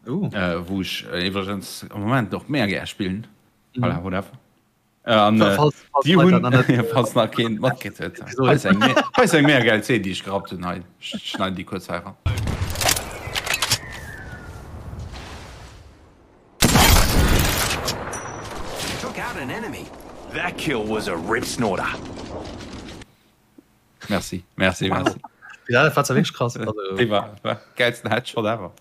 Oh. wou ech iwwregens am Moment och mega gär spillen. Voilà, whatever. An déi hunn, falls nach keen matkritt huet, hei ass eng, hei ass eng mega gäil Zeen, déi ech gerappt hunn hei. Ech schneiden déi kuerz hei eran. Took out an enemy. That kill was a rip snorter. Merci, merci, wow. merci. Ja, dat war zwar wierklech krass. Also, Dee war, war gäilsten Headshot ever.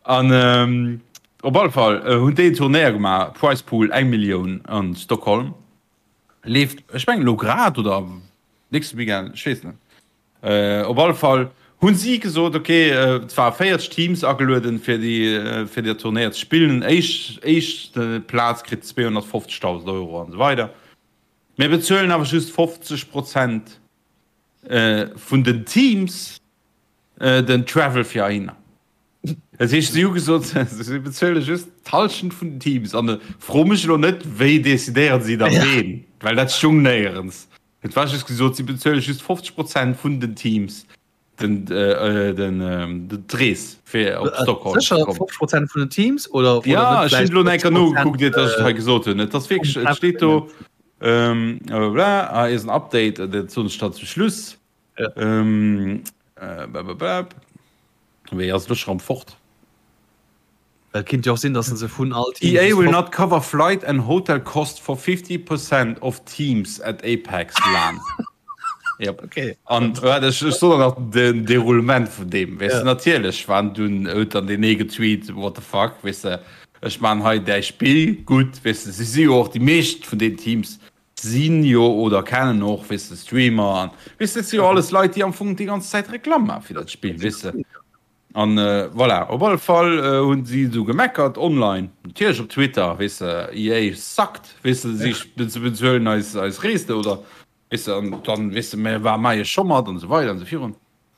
An ähm, op alle Fall äh, hunn déi en Turnéier gemaach, Prize Pool eng Millioun an Stockholm. Leeft, ech mengen elo grad oder nächste Weekend, ech weess net. Äh, op alle Fall hunn si gesot, okay, äh, et war 40 Teams agelueden fir déi äh, fir der Turnéier ze spillen. Éischt éischt Plaz kritt 250.000 Euro an esou weider. Mir bezuelen awer just 50 Prozent vun den Teams den Travel fir heihinner. Dat heescht, si hu gesot, si bezuele just d'Hallschent vun den Teams. An fro mech elo net, wéi decidéieren si da ween, well dat stoung néierens. Et war just gesot, si bezuele just 50 Prozent vun den Teams den d'Rees fir op Stockholm ze Sécher kommen. 50 Prozent vun den Teams oder oder Ja, net ech hunn vläicht elo enker 50 nogekuckt, Prozent iert dass ech et hei gesot hunn. Et ass vum wierklech, et steet do, Travel? blablabla, hei ass en Update, dat soen ech dann zum Schluss. Ähm, äh, Wéi ass lo schon fort? Well kinnt jo och sinn, dass se vun all Team EA will not cover flight and hotel cost for 50% of teams at Apex LAN. Yep. Okay. An waart, ech, ech soen nach den Deroulement vun deem. Weess de, natierlech waren dunn, huet dann deen ee getweet, what the fuck, weess de, ech maan hei däi Spill gutt, weess de, si si jo och, déi meescht vun den Teams sinn jo oder kennen och, weess de, Streamer an, weess de, dat si jo alles Leit, déi am Fong déi ganz Zäit Reklamm maache fir dat Spill, weess de. An voilà, op alle Fall hunn si du gemeckert online, natierlech op Twitter, weess de, EA suckt, weess de, si bezuelen eis eis Rees oder, weess de, an dann, weess de, mir war maie scho mat an esou weider an esou virun.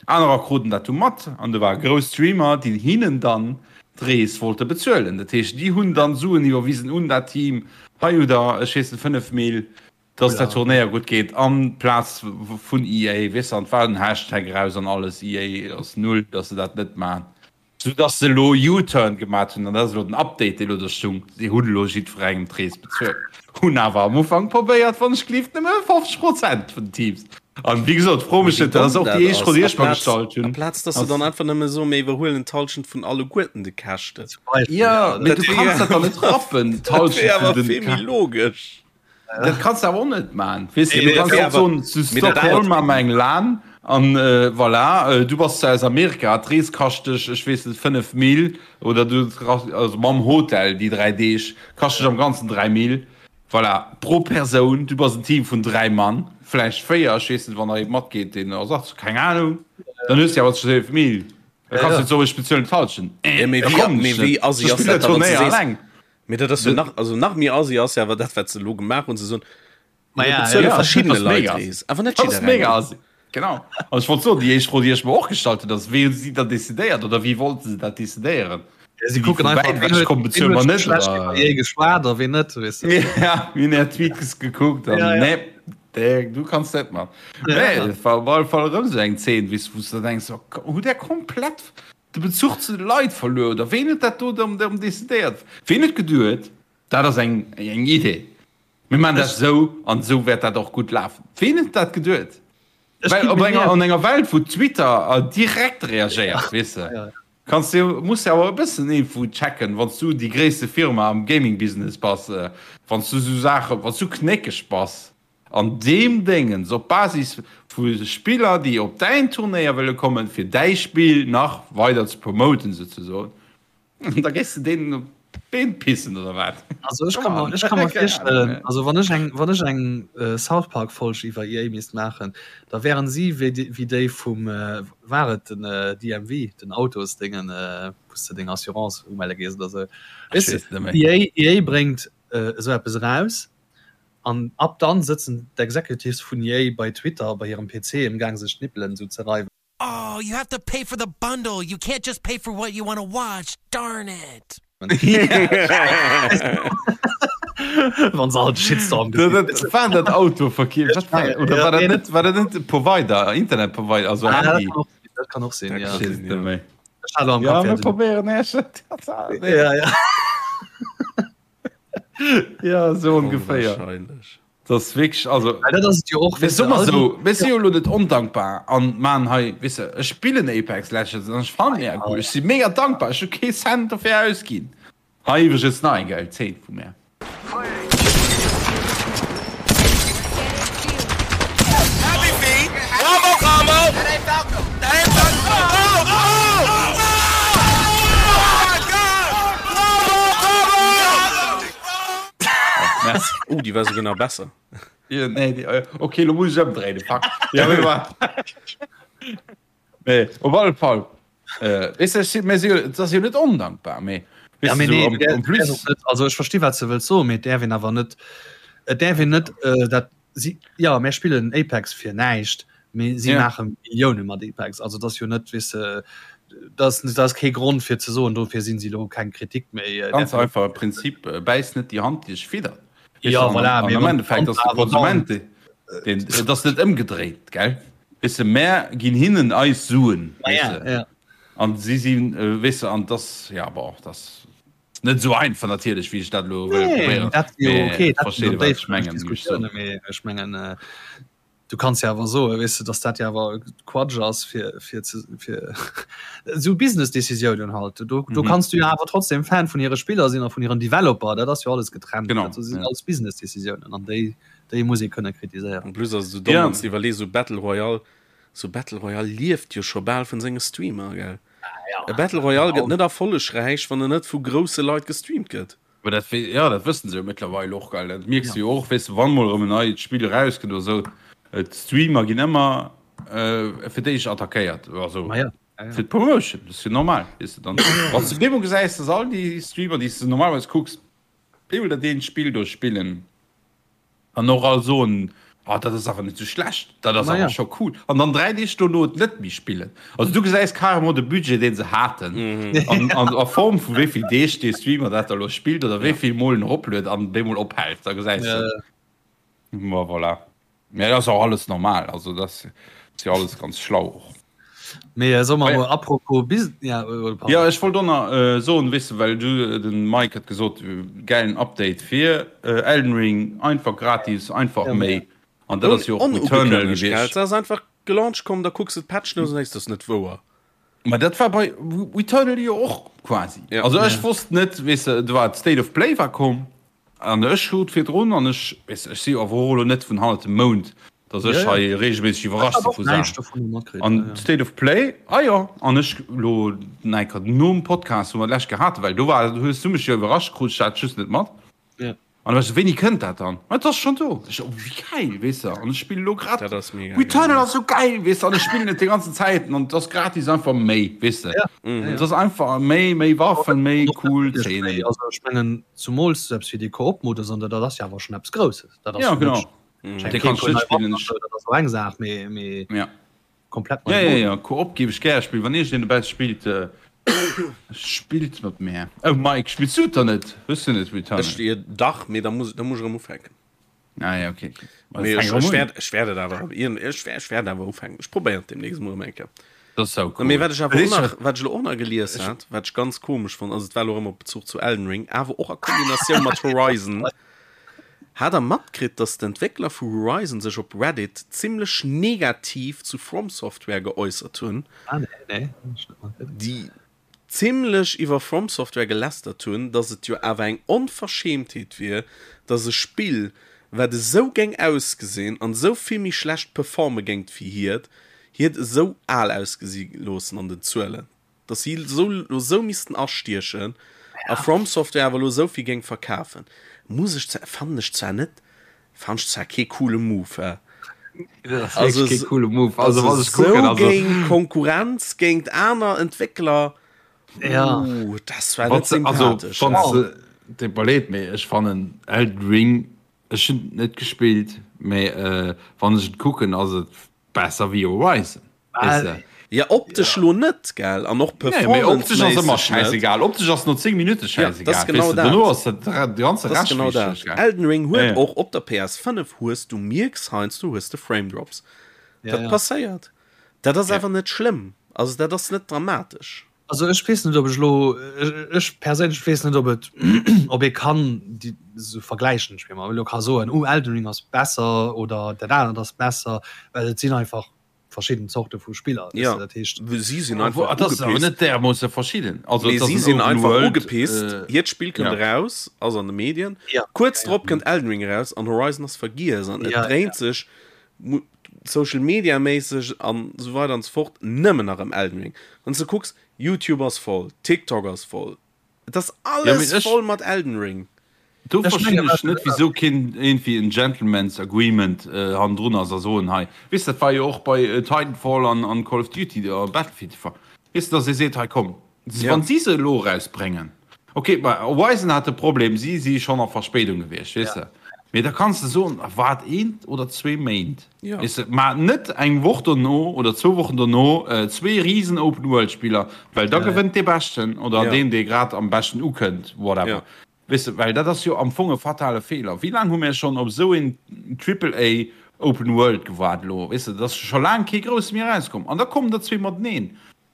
Anerer kruten dat du mat an do ware grouss Streamer, déi hinnen dann d'Rees wollte bezuelen. Dat heescht, déi hunn dann Suen iwwerwisen un dat Team, hei hutt der, ech weess net, 5 Mil, dass dat Turnéier gutt geet an Plaz vun EA, weess de, an et war en Hashtag eraus an alles, EA ass null, dass se dat net maachen, sou dass se elo U-Turn gemat hunn an dat ass elo den Update, dee elo do stung, si hunn elo jiddwerengem d'Rees bezuelt, hunn awer am Ufank probéiert, wann ech gelift, nëmme 50 Prozent vun den Teams. An wéi gesot, fro mech net, dat ass och déi éischt Fro, déi ech mer gestallt hunn. Amplaz dass se dann einfach nëmme soen, mir iwwerhuelen d'Hallschent vun alleguerten de Käschten. Jo, mee du kanns dat dann net rappen, d'Hallschent vun den. Dat wier awer vill méi logesch. Dat kanns de awer och net man. Weess de, du kanns net soen, zu Stockholm maache mer eng LAN an voilà, du bass zwar aus Amerika, d'Rees kascht dech, ech weess net, 5 Mil oder du, also mam Hotel déi 3 Deeg, kascht dech am Ganzen 3 Mil, voilà, pro Persoun. Du bass en Team vun 3 Mann, vläicht 4, ech weess net, wann nach ee matgeet, deen Ersatz, keng Anung, dann hues de awer 12 Mil. Da kanns du net soen, ech bezuelen d'Hallschent. Da kommen ech net. Ech spillen dat Turnéier alleng. Mee dat ass jo nach, also nach méi assi ass jo awer dat, wat se elo gemaach hunn, se soen, Ma mir ja, bezuele ja, verschiddene dat ass Leit mega d'Rees, awer net Dat ass mega jidderengem. assi. Genau. An ech wollt soen, déi éischt Fro, déi ech mer och gestallt hunn, ass, wéi hu si dat decidéiert oder wéi wollte se dat decidéieren? Ja, si Sinn déi kucken vu einfach, wäit wien ewech huet, komm, wien bezuele huet mer scho net schlecht iwwer oder? EA geschwat a wien net, weess de. Ja, mir hunn är Tweets gekuckt an Ja, ja. nee, dee, du kanns net mat. Ja, Nee, ja. et war op alle Fall erëm esou eng Zeen, wéi s, wou s de denks, oh, hutt där komplett de Bezuch zu de Leit verluer oder ween huet dat do erëm decidéiert? Ween huet geduet, dat ass eng eng Idee, mir maachen dat esou an esou wäert dat och gutt lafen? Ween huet dat geduet? Well op enger an enger Welt wou Twitter direkt reagéiert, weess de, kanns de muss de awer e bëssen iergendwou checken, wann s du déi gréisste Firma am Gaming-Business bass, wann s du esou Saachen, wann s du knéckeg bass. An deem Déngens, op Basis vu Spiller, déi op däin Turnéier wëlle kommen, fir däi Spill nach weider ze promoten souzesoen, da géifs de deenen op d'Been pissen, oder wat? Also ech ka mer, ech ka mer virstellen, also wann ech eng, wann ech eng South Park Folg iwwer EA misst maachen, da wären si wéi déi, wéi déi vum, war et den DMV, den Autosdéngen, wou s de deng Assurance umelle gees oder sou. Ech weess et net méi. EA, EA bréngt esou eppes eraus An ab dann sëtzen d'Executives vun EA bei Twitter bei hirem PC emgaang sech d'Nippelen esou ze reiwen. Oh, you have to pay for the bundle, you can't just pay for what you wanna watch, darn it! Wann se all de Shitstorm gesinn hunn. War dat Autoverkeef? Wat war, oder war dat net, war dat net de Provider, Internetprovider, also Ah, Handy? dat kann och sinn, ja. Ech weess et net méi. Ech hat am Ja, Kapp, mir ja, den- probéieren Äech. Ja, ja. Ja, sou ongeféier. Onwahrscheinlech. Das ist wirklich, also. Well dat ass et jo och, Mir weess de, soe mer all déi- sou, mir si jo elo net ondankbar an maachen hei, weess de, ech spillen Apex Legends an ech fannen mega cool, ech si mega dankbar, ech hu kee Cent dofir ausginn. Hei iwwregens nach eng gäil Zeen vu mär. Oh, déi war souguer nach besser. Ja, nee, déi, äh, okay, lo muss ech ëmdréinen, fuck. Ja, mee war. Nee, op alle Fall. Äh, weess de, ech si, mir si jo, et ass jo net ondankbar, mee, Ja, weess mee de, nee, sou, du en plus. däerfs och net, also ech versti wat s de wëlls soen, mee et däerf een awer net, et däerf een net äh, dat si, jo, mär spillen Apex fir näischt, mee si Ja. maache Millioune mat Apex. Also et ass jo net, weess de, dat ass, dat ass kee Grond fir ze soen, dofir sinn si elo keng Kritik méi. Äh, Ganz däerf een einfach e Prinzip, äh, bäiss net déi Hand, déi dech fiddert. Weess Ja, de, an, voilà, an mee am wann Endeffekt ass de awer dann- Konsument, deen, et ass net ëmgedréit, gell? Weess de, mär ginn hinnen eis Suen, Ma weess ja, de. ja. An si sinn, weess de, an dass, ja, bon, dass net esou einfach natierlech, wéi ech dat elo wëll Nee, probéieren. dat jo Mee okay, dat versteet sinn ee, wat ech déif mengen, wéi ech soen. Diskussiounen, mee ech mengen, äh. Du kanns jo awer soen, weess de, dass dat jo awer Quatsch ass, fir, fir ze, fir esou Business-Decisiounen halt. Do, do kanns du jo awer trotzdem Fan vun hire Spiller sinn a vun hiren Developer, dat ass jo alles getrennt. Genau, Dat sinn ja. alles Business-Decisiounen an déi, déi muss ee kënne kritiséieren. En plus ass et esou domm, wann s de iwwerlees, esou Battle Royale, esou Battle Royale lieft jo scho bal vun senge Streamer, gell? E Battle Royale gëtt net erfollegräich, wann en net vu grousse Leit gestreamt gëtt. Mä dat, jo, dat wëssen se jo mëttlerweil och, gell. Dat mierks de jo och, weess de, wann mol erëm en neit Spill erauskënnt oder esou, d'Streamer ginn ëmmer fir d'éischt attackéiert, also fir d'Promotion, dat ass jo normal, weess de. Dann, wann s de op eemol gesäis, dass all déi Streamer, déi s de normalerweis kucks, op eemol dat eent Spill do spillen, An och all soen, oh, dat ass awer net sou schlecht, dat ass awer scho cool. An dann 3 Deeg dono et net méi spillen. Also du gesäis carrément de Budget, deen se haten, an, an a Form vu wéi vill Deeg dee Streamer dat da lo spillt oder wéi vill Mol en eropluet an bemol ophält. Da gesäis de. Ma voilà. Mä dat ass och alles normal. Also dat ass jo alles ganz schlau och. Mee soe mer emol apropos Bus-, ja, oder pardon. Jo, ech wollt och nach soen, weess de, well du, den Mike huet gesot, gäilen Update fir Elden Ring, einfach gratis, einfach méi, an dat ass jo och Returnal Onugekënnegt, gell? gewiescht. Se ass einfach gelauncht komm, da kucks de d'Patch Notes an denkst, dat ass net wouer. Ma dat war bei Returnal jo och quasi. Ja. Also ech wosst net, weess de, do war d'State of Play war komm, An ech krut virdrun, an ech, weess, ech si jo awer och elo net vun hannert dem Mound, datt ech hei reegelméisseg iwwerrascht si vu Saachen. An State of Play, ah jo, an ech elo enker nom Podcast, wou mer d'lescht Kéier haten, well do war, hues du mech jo iwwerrascht, krut ech dat just net mat. An da war ech esou, wéini kënnt dat dann? Ma et ass schonn do. Ech esou, oh wéi gäil, weess de, an ech spillen elo grad, Returnal ass esou gäil, weess de, an ech spillen et déi ganzen Zäiten an et ass gratis einfach méi, weess de. Et ass einfach méi, méi Waffen, méi cool Zeenen. Also ech mengen, Zumools esou eppes wéi dee Koop-Modus an dat ass jo awer schonn eppes Grousses. Dat ass Ja, jo genau. net Mm. Dee kanns du net spillen. Ech- Dat ass och eng Saach, mee, mee Ja. komplett Ja, nei ja, Modus. ja. Koop géif ech gäre spillen. Wann iergendeen dobäi spillt, äh, spillt mat mär. Oh Mike, spills du et dann net? Hues du net Returnal? Ech, jo, dach, mee da muss, da muss ech erëm ufänken. Ah ja, okay. Okay. Mee ech, ech wäert, ech wäert et awer, ech, ech wäert awer ufänken. Ech probéieren et demnächst mol erëm eng Kéier. Dat ass sau cool. Mee wat ech awer och nach, wat ech elo och nach gelies hat, wat ech ganz komesch fonnt, also et war elo erëm op Bezuch zu Elden Ring, awer och a Kombinatioun mat Horizon, Hat der matkritt, dass d'Entwéckler vu Horizon sech op Reddit zimmlech negativ zu From Software geäussert hunn? Ah nee, nee, hunn ech net matkritt. Déi zimlech iwwer From Software gelästert hunn, dass et jo awer eng Onverschämtheet wier, dass e Spill, wat esou géing ausgesinn an esou vill méi schlecht performe géingt wéi hiert, hiert esou al ausgesi loossen an den Zuelen, dass si esou lo esou missten astiechen a From Software awer lo esou vill géing verkafen. Muss ech zwar, fannen ech zwar net, Fannen ech zwar kee coole Move, hä? Also, kee coole Move. Also, also was ich gucken, so also géint Konkurrenz, géint aner Entwéckler, ja. Uh, das war net also, sympathesch. Also, wann du leed, mee ech fannen Elden Ring, ech hunn net gespillt, mee äh, wann ech et kucken, ass et Besser wéi Horizon. Weess de? Ja, optesch lo net, gell? An och Nee, mee optesch ass ëmmer performance-méisseg net. schäisegal. Optesch ass no 10 Minutte Ja, dat ass schäisegal, genau weess de. dat. Dono ass dat de ganze Dat ass Rescht genau wichteg, dat. gell? Elden Ring Ja, huet ja. och op der PS5 hues du mierks heiansdo hues de Frame Drops. Ja, Dat ja. passéiert. Dat ass Ja. awer net schlëmm. Also dat ass net dramatesch. Also ech weess net ob ech elo, ech perséinlech weess net ob et ob ee kann déi esou vergläichen, ech meng elo ka soen oh Elden Ring ass besser oder dat anert ass besser, well et sinn einfach verschidden Zorte vu Spiller, weess Ja, de, dat heescht. si sinn Obwuel, einfach et ass awer ugepisst. net därmoosse verschidden. Also Mee et ass si en sinn Open einfach World, ugepisst. äh, Hiert Spill kënnt ja. eraus, ass an de Medien. Ja, Kuerz ja, drop kënnt Elden Ring eraus an Horizon ass vergiess an et ja, ja. dréint sech Social Media méisseg an esou weider an esou fort nëmmen nach ëm Elden Ring. Wann s de kucks, YouTube ass voll, TikTok ass voll, et ass Ja, mee alles ech, voll mat Elden Ring. do Ech verstinn menge ech wat net, wisou keen iergendwéi en Gentleman's Agreement hannendrun ass a soen, hei, weess de, dat war jo och bei Titanfall an an Call of Duty a Battlefield de Fall, weess de, dass ee seet, hei komm, Ja. wann si se elo erausbréngen, ok, bei Horizon hat de Problem, si si schonn a Verspéidung gewiescht, weess de, mee da kanns de soen, waart eent oder zwee Méint, Ja. weess de, mä net eng Woch dono oder zwou Wochen dono zwee risen Open-World-Spiller, well da Ja, ja. gewënnt dee Beschten oder Ja. deen, dee grad am beschten ukënnt, whatever. Ja. Weess de, well dat ass jo am Fong e fatale Feeler. Wéi laang hu mir schonn op esou een Triple A Open World gewaart elo? Weess de, et ass scho laang kee grousse méi erauskomm an da kommen der zwee mateneen.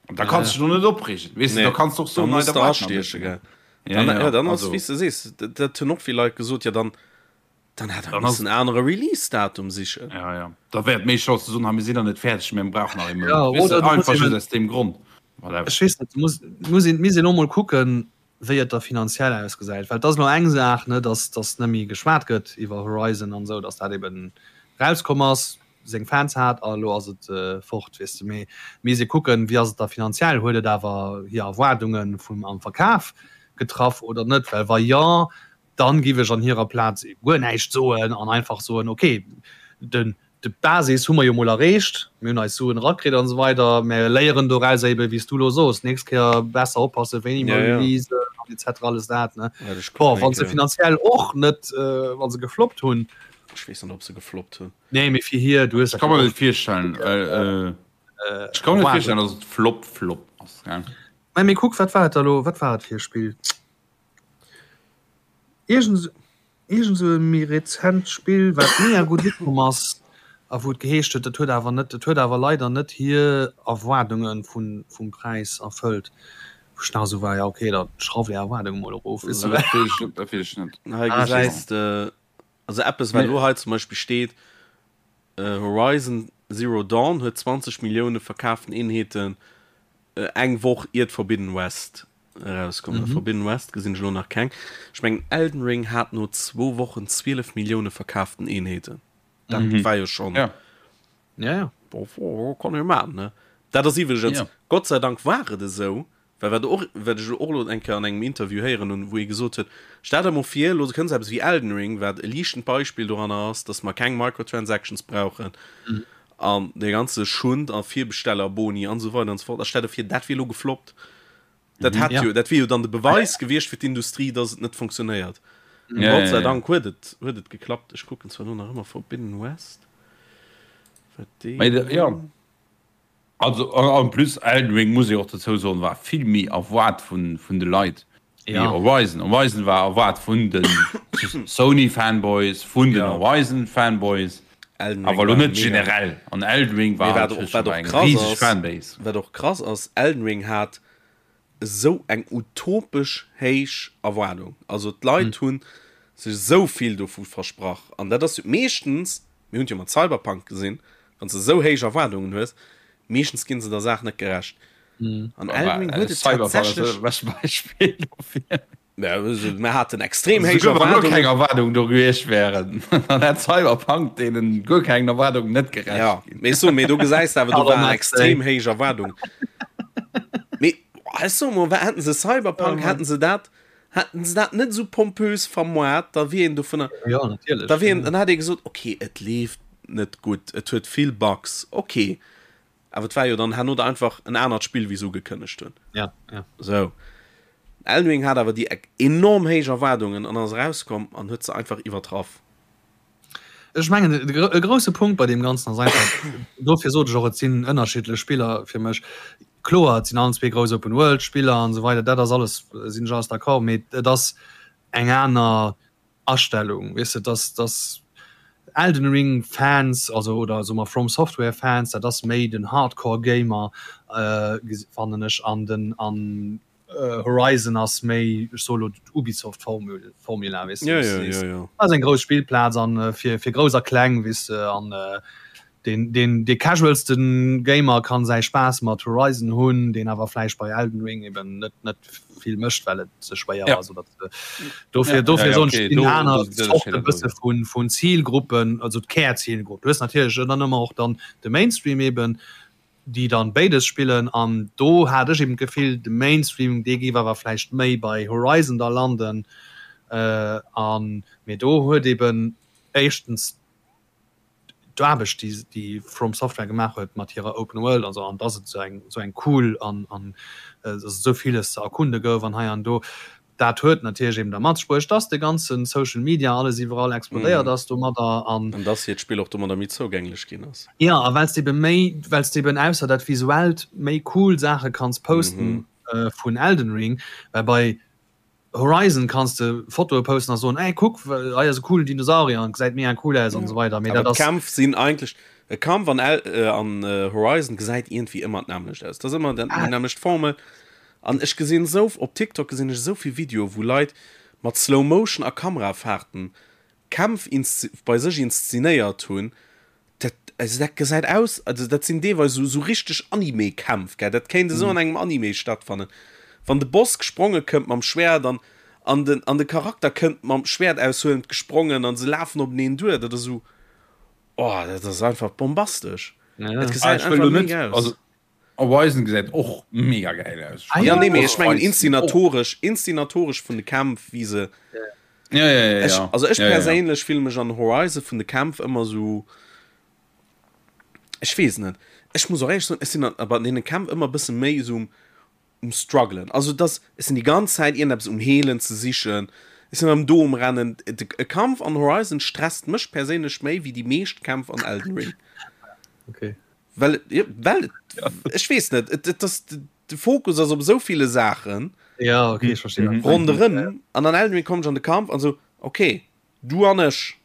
An da kanns du dech och net opreegen, weess de, Nee, da kanns du och da soen, muss nei, da de waart nach e astieche, bëssen. gell. Ja, Dann, ja, ja, dann ass, also. wéi s de sees, dat, dat hunn och vill Leit gesot, ja dann. Dann hätt er missen en anere Release-Datum sichen. Ja, ja. Da wär et méi schlau ze soen, ha mir sinn nach net fäerdeg, mir brauchen nach ee Mount. Ja, oder du einfach just aus deem Grond. Whatever. Ech weess net, du muss, muss een, misst een och mol kucken, wéi et da finanziell ausgesäit. Well et ass elo eng Saach, ne, dass, dass net méi geschwat gëtt iwwer Horizon an esou, dass dat eben rauskomm ass, seng Fans hat a elo ass et fort, weess de. Mee misst ee kucken, wéi ass et da finanziell, huet et awer hir Erwaardunge vum am Verkaf getraff oder net? Well wa jo, dann giff ech an hirer Plaz guer näischt soen an einfach soen, ok, den, d'Basis hu mer jo mol erreecht, mir hunn eis Suen erakritt an esou weider, mä léieren doraus eben, wéi s du elo soos, d'nächst Kéier besser oppassen, wéini mer releasen an et cetera, alles dat, ne. Bon, wa se finanziell och net, wa se gefloppt hunn. Ech weess net, ob se gefloppt hunn. Nee, mee fir hir, du hues dat. Ech ka mer net virstellen, ech ka mer net virstellen, datt et Flop, Flop ass, gell. Mä mee kuck, wat war et da elo, wat war et fir e Spill? Iergend iergend esou e méi rezent Spill, wat mega gutt ukomm ass a wou et geheescht huet, dat huet awer net, dat huet awer leider net hir Erwaardunge vun vum Präis erfëllt. Wou ech nach esou war, ja okay, da schrauft är Erwaardunge mol erof, weess de. Dat weess ech, dat weess ech net. Hei gesäis de also eppes wat elo hei zum Beispill steet, Horizon Zero Dawn huet 20 Millioune verkaaften Eenheeten eng Woch iert Forbidden West erauskomm. Mm -hmm. Forbidden West gesinn ech elo nach keng. Ech mengen Elden Ring hat no zwou Wochen 12 Millioune verkaaften Eenheeten. Dat mm -hmm. war jo schon. Ja. Ja, ja. Bo, bo, kann jo man, ne? Dat ass iwwregens, ja. Gott sei Dank war et esou, well wat och, wat ech och elo eng Kéier an engem Interview héieren hunn, wou ee gesot huet, stell der mol vir, elo kënns eppes wéi Elden Ring, wat e liichtend Beispill doranner ass, dass mer keng Microtransactions brauchen mm. an dee ganze Schund a Virbestellerboni an esou weider an esou fort. A stell der vir, dat wier elo gefloppt. Dat hat jo, dat wier jo dann de Beweis gewiescht fir d'Industrie, dass et net funktionéiert. Ja, Gott sei Dank huet et, huet et geklappt. Ech kucken zwar elo nach ëmmer Forbidden West. Wat déi. Mee, ja. Also en plus Elden Ring muss ee och dozou soen, war vill méi erwaart vun, vun de Leit wéi ja. Horizon. Horizon war erwaart vun de Sony Fanboys, vun den ja. Horizon Fanboys. Awer elo net generell. An Elden Ring war wat och, wat och krass ass, Fanbase. Wat och krass ass, Elden Ring hat esou eng utopesch héich Erwaardung. Also d'Leit mm. hunn sech esou vill dovu versprach. An dat ass meeschtens, mir hunn jo mat Cyberpunk gesinn, wann s de esou héich Erwaardungen hues, meeschtens ginn se der Saach net gerecht. Mm. An Elden Ring huet et tatsächlech. Beispill dofir. Mir haten extrem héich Erwaardungen. Keng Erwaardung do gewiescht wären, dann hätt Cyberpunk deenen guer keng Erwaardung net gerecht ja, ginn. Mee so, mee do gesäis de awer, do waren extrem héich Erwaardungen. Mee ech soe mol, hätten se Cyberpunk, hätten se dat, hätten se dat net esou pompös vermoart, da wier een dovunner, ja, natierlech, da wier een, dann hätt ee gesot, okay, et leeft net gutt, et huet vill Bugs, okay. Awer et war jo dann herno da einfach en anert Spill, wéi se ugekënnegt hunn. Ja, ja. Sou. Elden Ring hat awer déi enorm héich Erwaardungen an ass erauskomm an huet se einfach iwwertraff. Ech mengen, e grousse Punkt bei deem Ganzen ass einfach, dofir sot ech och, et sinn ënnerschiddlech Spiller fir mech. Kloer, et sinn allen zwee grouss Open-World-Spiller an esou weider, dat ass alles, sinn ech alles d'accord, mee et ass eng aner Astellung, weess de, dass dass Elden Ring Fans, also oder soe mer From Software Fans, dat ass méi den Hardcore Gamer fannen ech, an den an Horizon ass méi, ech soe lo d'Ubisoft Formule Formula, weess de, wou s de sees, dat ass eng grouss Spillplaz an fir fir grouss a kleng, weess de, an Deen, deen, dee casualste Gamer kann säi Spaass mat Horizon hunn, deen awer vläicht bei Elden Ring eben net, net vill mécht, well et ze schwéier ass oder ze. Dofir, dofir soen ech, et sinn aner Zorte bësse vun, vun Zilgruppen, also d'Kärzilgrupp. Du hues natierlech dann ëmmer och dann de Mainstream eben, déi dann béides spillen an do hat ech eben d'Gefill, de Mainstream, dee géif awer vläicht méi bei Horizon da landen an, mee do huet eben éischtens d'Aarbecht déi déi From Software gemaach huet mat hirer Open World an esou an dass et esou eng esou eng cool an an dass et esou villes ze erkunde gouf an hei an do, dat huet natierlech eben da mat sech bruecht, dass de ganze Social Media alles iwwerall explodéiert ass domadder an. An dass hiert Spill och domadder méi zougänglech ginn ass. Jo, a well s de ebe méi, well s de eben ausser dat Visuellt méi cool Saache kanns posten vun Elden Ring, well bei Horizon kanns de Fotoe posten a soen, ey kuck, hei ass e coolen Dinosaurier an gesäit mega cool aus an esou weider. Mee dat ass. D'Kämpf sinn eigentlech, e Kampf an El, an Horizon gesäit iergendwéi ëmmer d'nämmlecht aus. Dat ass ëmmer déi nämmlecht Formel. An ech gesinn esou, op TikTok gesinn ech esou vill Videoe wou Leit mat Slow Motion a Kamerafahrten. Kämpf bei sech inszenéiert hunn, dat, also dat gesäit aus, also dat sinn deelweis esou, esou richteg Anime-Kämpf, gell, dat kéint esou an engem Anime stattfannen. Wann de Boss gespronge kënnt mam Schwert an, an den, an de Charakter kënnt mam Schwert aushuelend gesprongen an se lafen openeen duer, dat ass esou, oh, dat ass einfach bombastesch. Dat gesäit einfach mega aus. Horizon gesäit och mega gäil aus. Ah, ja, nee, mee ech mengen inszenatoresch, inszenatoresch vun de Kämpf, wéi se. Ja, ja, ja, Ech, ja. also ech ja, ja, ja. perséinlech fille mech an Horizon vun de Kämpf ëmmer sou, ech weess net, ech muss och éierlech soen, ech sinn an, bei deene Kämpf ëmmer e bësse méi esou um, um struggelen. Also dass, ech sinn déi ganz Zäit iergendeppes um Heelen ze sichen, ech sinn erëm do um Rennen. De, e Kampf an Horizon stresst mech perséinlech méi wéi déi meescht Kämpf an Elden Ring. Okay. Well, well ech weess net, et, et ass, de Fokus ass op esou ville Saachen. Ja, okay, ech verstinn. Mhm. Ronderëm an an Elden Ring komm ech an de Kampf an sou, okay, du an ech.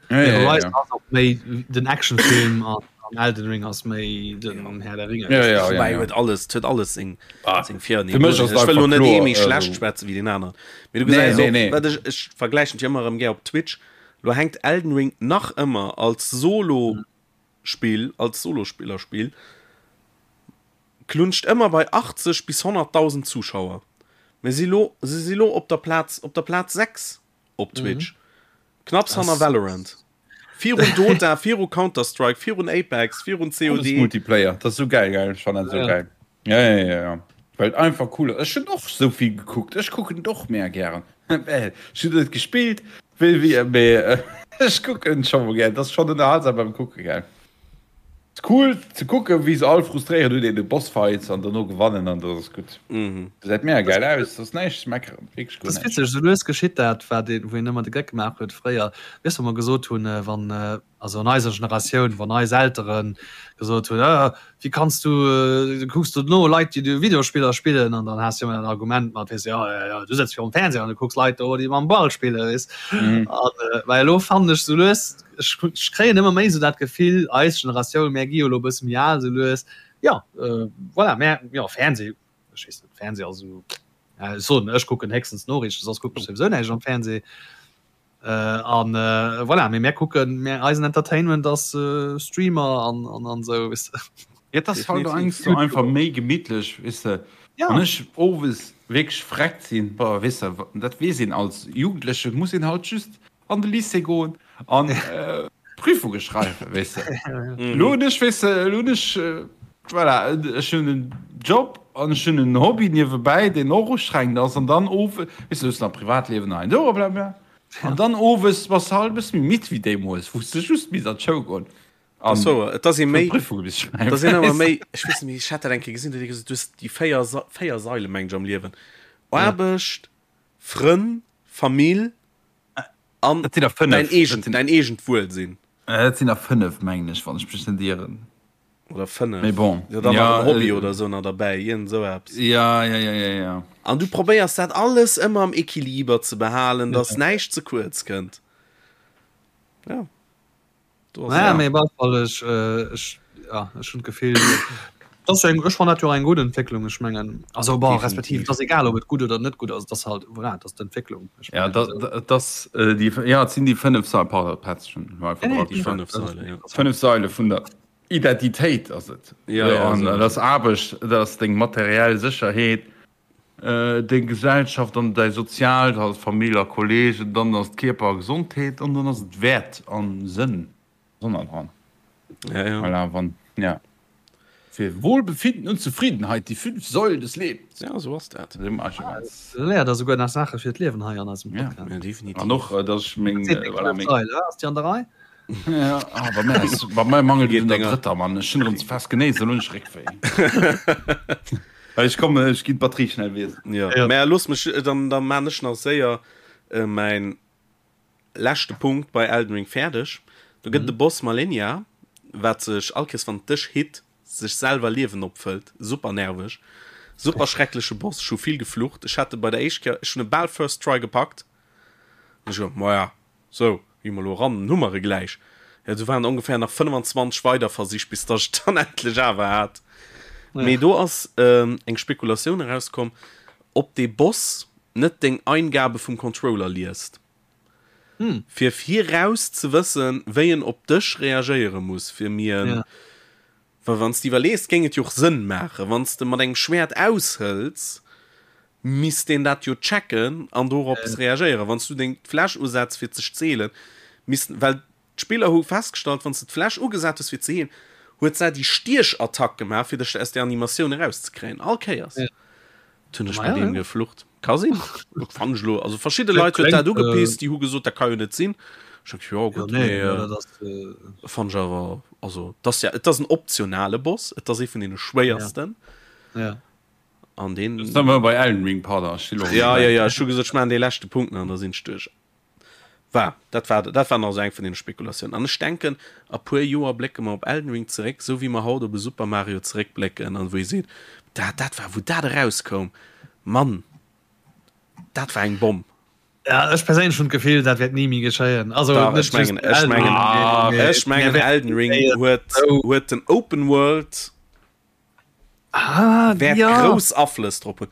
Ja, ja, ja, Horizon ja. ass och méi den Actionfilm an, an Elden Ring ass méi den Herr der Ringe. Ja, ja, ja, Wobei ja. huet alles, huet alles seng, Ah, seng Vir- an fir mech ass Ech wëll lo einfach net ee kloer, méi schlecht also- schwätzen wéi deen aneren. Mee du Nee, gesäis nee, och, nee. wat ech, ech vergläichen et jo ëmmer erëm gär op Twitch, lo hänkt Elden Ring nach ëmmer als Solo Spill als Solospillerspill klunscht ëmmer bei 80 bis 100.000 Zuschauer. Mir si lo, se si lo op der Plaz, op der Plaz 6 op Twitch. Mhm. Knapps hanner Valorant. Virun Dota, viru Counter-Strike, virun Apex, virun Alles COD. Multiplayer, dat ass sou geil, geil, ech fannen dat sou Ja. geil. Ja, ja, ja, ja. Well et einfach cool ass. Ech hunn och sou vill gekuckt, ech kucken et och mega gären. Well ech hunn net gespillt, wéi wéi, mee ech kucken scho mol gär. Et ass schonn ënnerhalsam beim Kucke, gell. Ass cool ze kucken, wéi se all frustréiert un deene Bossfights an derno gewannen an dat ass gutt. Gesäit mega gäil aus, ass näischt ze meckeren, wierklech guer Dat ass näischt. witzeg, esou lues geschitt dat, wat een, wou een ëmmer de Geck gemaach huet fréier, weess wou mer gesot hunn, wann also an eiser Generatioun, wann eis Eltere gesot hunn, ah, wéi kanns du, du kucks do no Leit, déi do Videospiller spillen, an dann has du ëmmer dat Argument mat, weess de, jo, jo, jo, du sëtz virum Fernseher an du kucks Leit do, déi mam Ball spillen, weess. An well elo fannen ech sou lues, ech, ech kréien ëmmer méi sou dat Gefill, eis Generatioun, mär gi jo elo e bësse méi al sou lues, jo, voilà, mär, jo, Fernseh, ech weess net, Fernseh ass esou, ech soen, ech kucken héchstens Noriichten, soss kucken ech souwisou näischt am Fernseh. An voilà, mee mär kucken, mär, eisen Entertainment ass Streamer an an an esou, weess de. Ja, et ass halt och sou einfach méi gemittlech, weess de. Wann ech owes wierklech vreckt sinn, boah, weess de, dat weess een als Jugendleche muss een halt just an de Lycée goen an Prüfunge schreiwen, weess de. Elo hunn ech, weess de, elo hunn ech, voilà, ech hunn en Job an ech hunn en Hobby niewebäi, deen och ustrengend ass an dann owes, weess de, du hues nach Privatliewen hei an do, blablabla. An dann owes bass de halt e bësse méi midd wéi deemools, wou s de just misst an d'Schoul goen an So, et ass ee méi, Prüfunge misst et ass een ëmmer méi, ech weess net méi, ech hat dat eng Kéier gesinn, do huet ee gesot, du hues déi 4, 4 Saile mengen ech am Liewen, Aarbecht, Frënn, Famill an Dat sinn der 5. däin eegent, däin eegent Wuelsinn. Dat sinn der 5, mengen ech, wann ech mech net ieren. Oder 5. Mee bon. Jo, dann nach en Hobby oder esou nach derbäi, iergend esou eppes. Ja, ja, ja, ja, ja. An du probéiers dat alles ëmmer am Equiliber ze behalen, dass näischt ze kuerz kënnt. Ja. Do ass Naja, mee op alle Fall, ech, ech, ja, ech hunn d'Gefill, dass eng, ech fannen dat jo eng gutt Entwécklung. Ech mengen, also bon, respektiv, et ass egal, ob et gutt oder net gutt ass, et ass halt, voilà, et ass d'Entwécklung. Ech Ja, mengen, dat, dat ass déi, ja, et sinn déi 5 Sailen, pardon, Petz, ech hunn einfach Nee, nee, déi 5 Sailen, ja. 5 Saile vun der Identitéit ass et. Ja, ja, An esou. dat ass Aarbecht, dat ass deng materiell Sécherheet, deng Gesellschaft an däi Soziaalt, halt Famill a Kollegen, dann ass et Kierper a Gesondheet an dann ass et Wäert an Sënn dran. Ja, ja. Voilà, wann, ja. Fir Wohlbefinden und Zufriedenheit, die fünf Säulen des Lebens. Ja, esou ass dat. Du léiert der souguer nach Saache fir d'Liewen hei an eisem Podcast. Ja, definitiv. An och, dass ech meng, voilà, meng. Sail, ass déi an der Rei? Ja, ah, bei mir ass, bei mir mangelt et un der drëtter, Mann. Ech hunn erëm ze fest genéist, elo hunn ech Réckwéi. Ech kommen, ech ginn d'Batterie schnell wiesselen. Ja, mä looss mech, dann, dann maan ech nach séier mäin leschte Punkt bei Elden Ring fäerdeg. Do gëtt et e Boss, Malenia, wat sech all Kéiers wann et dech hit, sech selwer Liewen opfëllt. Super nerveg. Super schreckleche Boss. Ech hu vill geflucht. Ech hat e bei der éischt Kéier, ech hunn e bal first try gepackt. An ech gesot, maja, sou, gi mer elo eran, dann hu mer e gläich. Jo, do waren ongeféier nach 25 weider Versich, bis datt ech et dann endlech awer hat. Mee do ass eng Spekulatioun erauskomm, ob dee Boss net deng Eingabe vum Controller liest. Fir viraus ze wëssen, wéi en op dech reagéiere muss, fir mir en. Well wann s de iwwerlees, géing et jo och Sënn maachen, wann s de mat engem Schwäert aushëls, misst deen dat jo checken an dorops reagéieren. Wann s du deng Fläsch usetz fir ze zeelen, misst, well d'Spiller hu festgestallt, wann s de d'Fläsch ugesat hues fir ze heelen, huet se déi Stiechattack gemaach, fir dech aus där Animatioun erauszekréien, all Kéiers. Dat hunn ech bei deem geflucht. Ka sinn. Fann ech elo. Also verschidde Leit huet dat ugepisst, déi hu gesot, dat ka jo net sinn. Ech hu jo gutt, mee fann ech awer, also et ass ja, et ass en optionale Boss, et ass ee vun deene schwéiersten. An deen. Elo si mer bei Elden Ring, pardon, ech si elo. Ja, ja, ja, ech hu gesot, ech maachen dee leschte Punkt nach an da sinn ech duerch. War, dat war, dat war nach esou eng vun deene Spekulatiounen. An ech denken, a puer Joer blécke mer op Elden Ring zeréck, esou wéi mer haut op e Super Mario zeréckblécken an wou ee seet, dat, dat war, wou dat erauskoum, Mann, dat war eng Bomm. Ja, ech perséinlech hunn d'Gefill, dat wäert ni méi geschéien. Also, Dach, ech mengen, ech mengen, ech mengen Elden Ring huet, huet den Open World ah, wäert ja. grouss Aflëss drop hunn.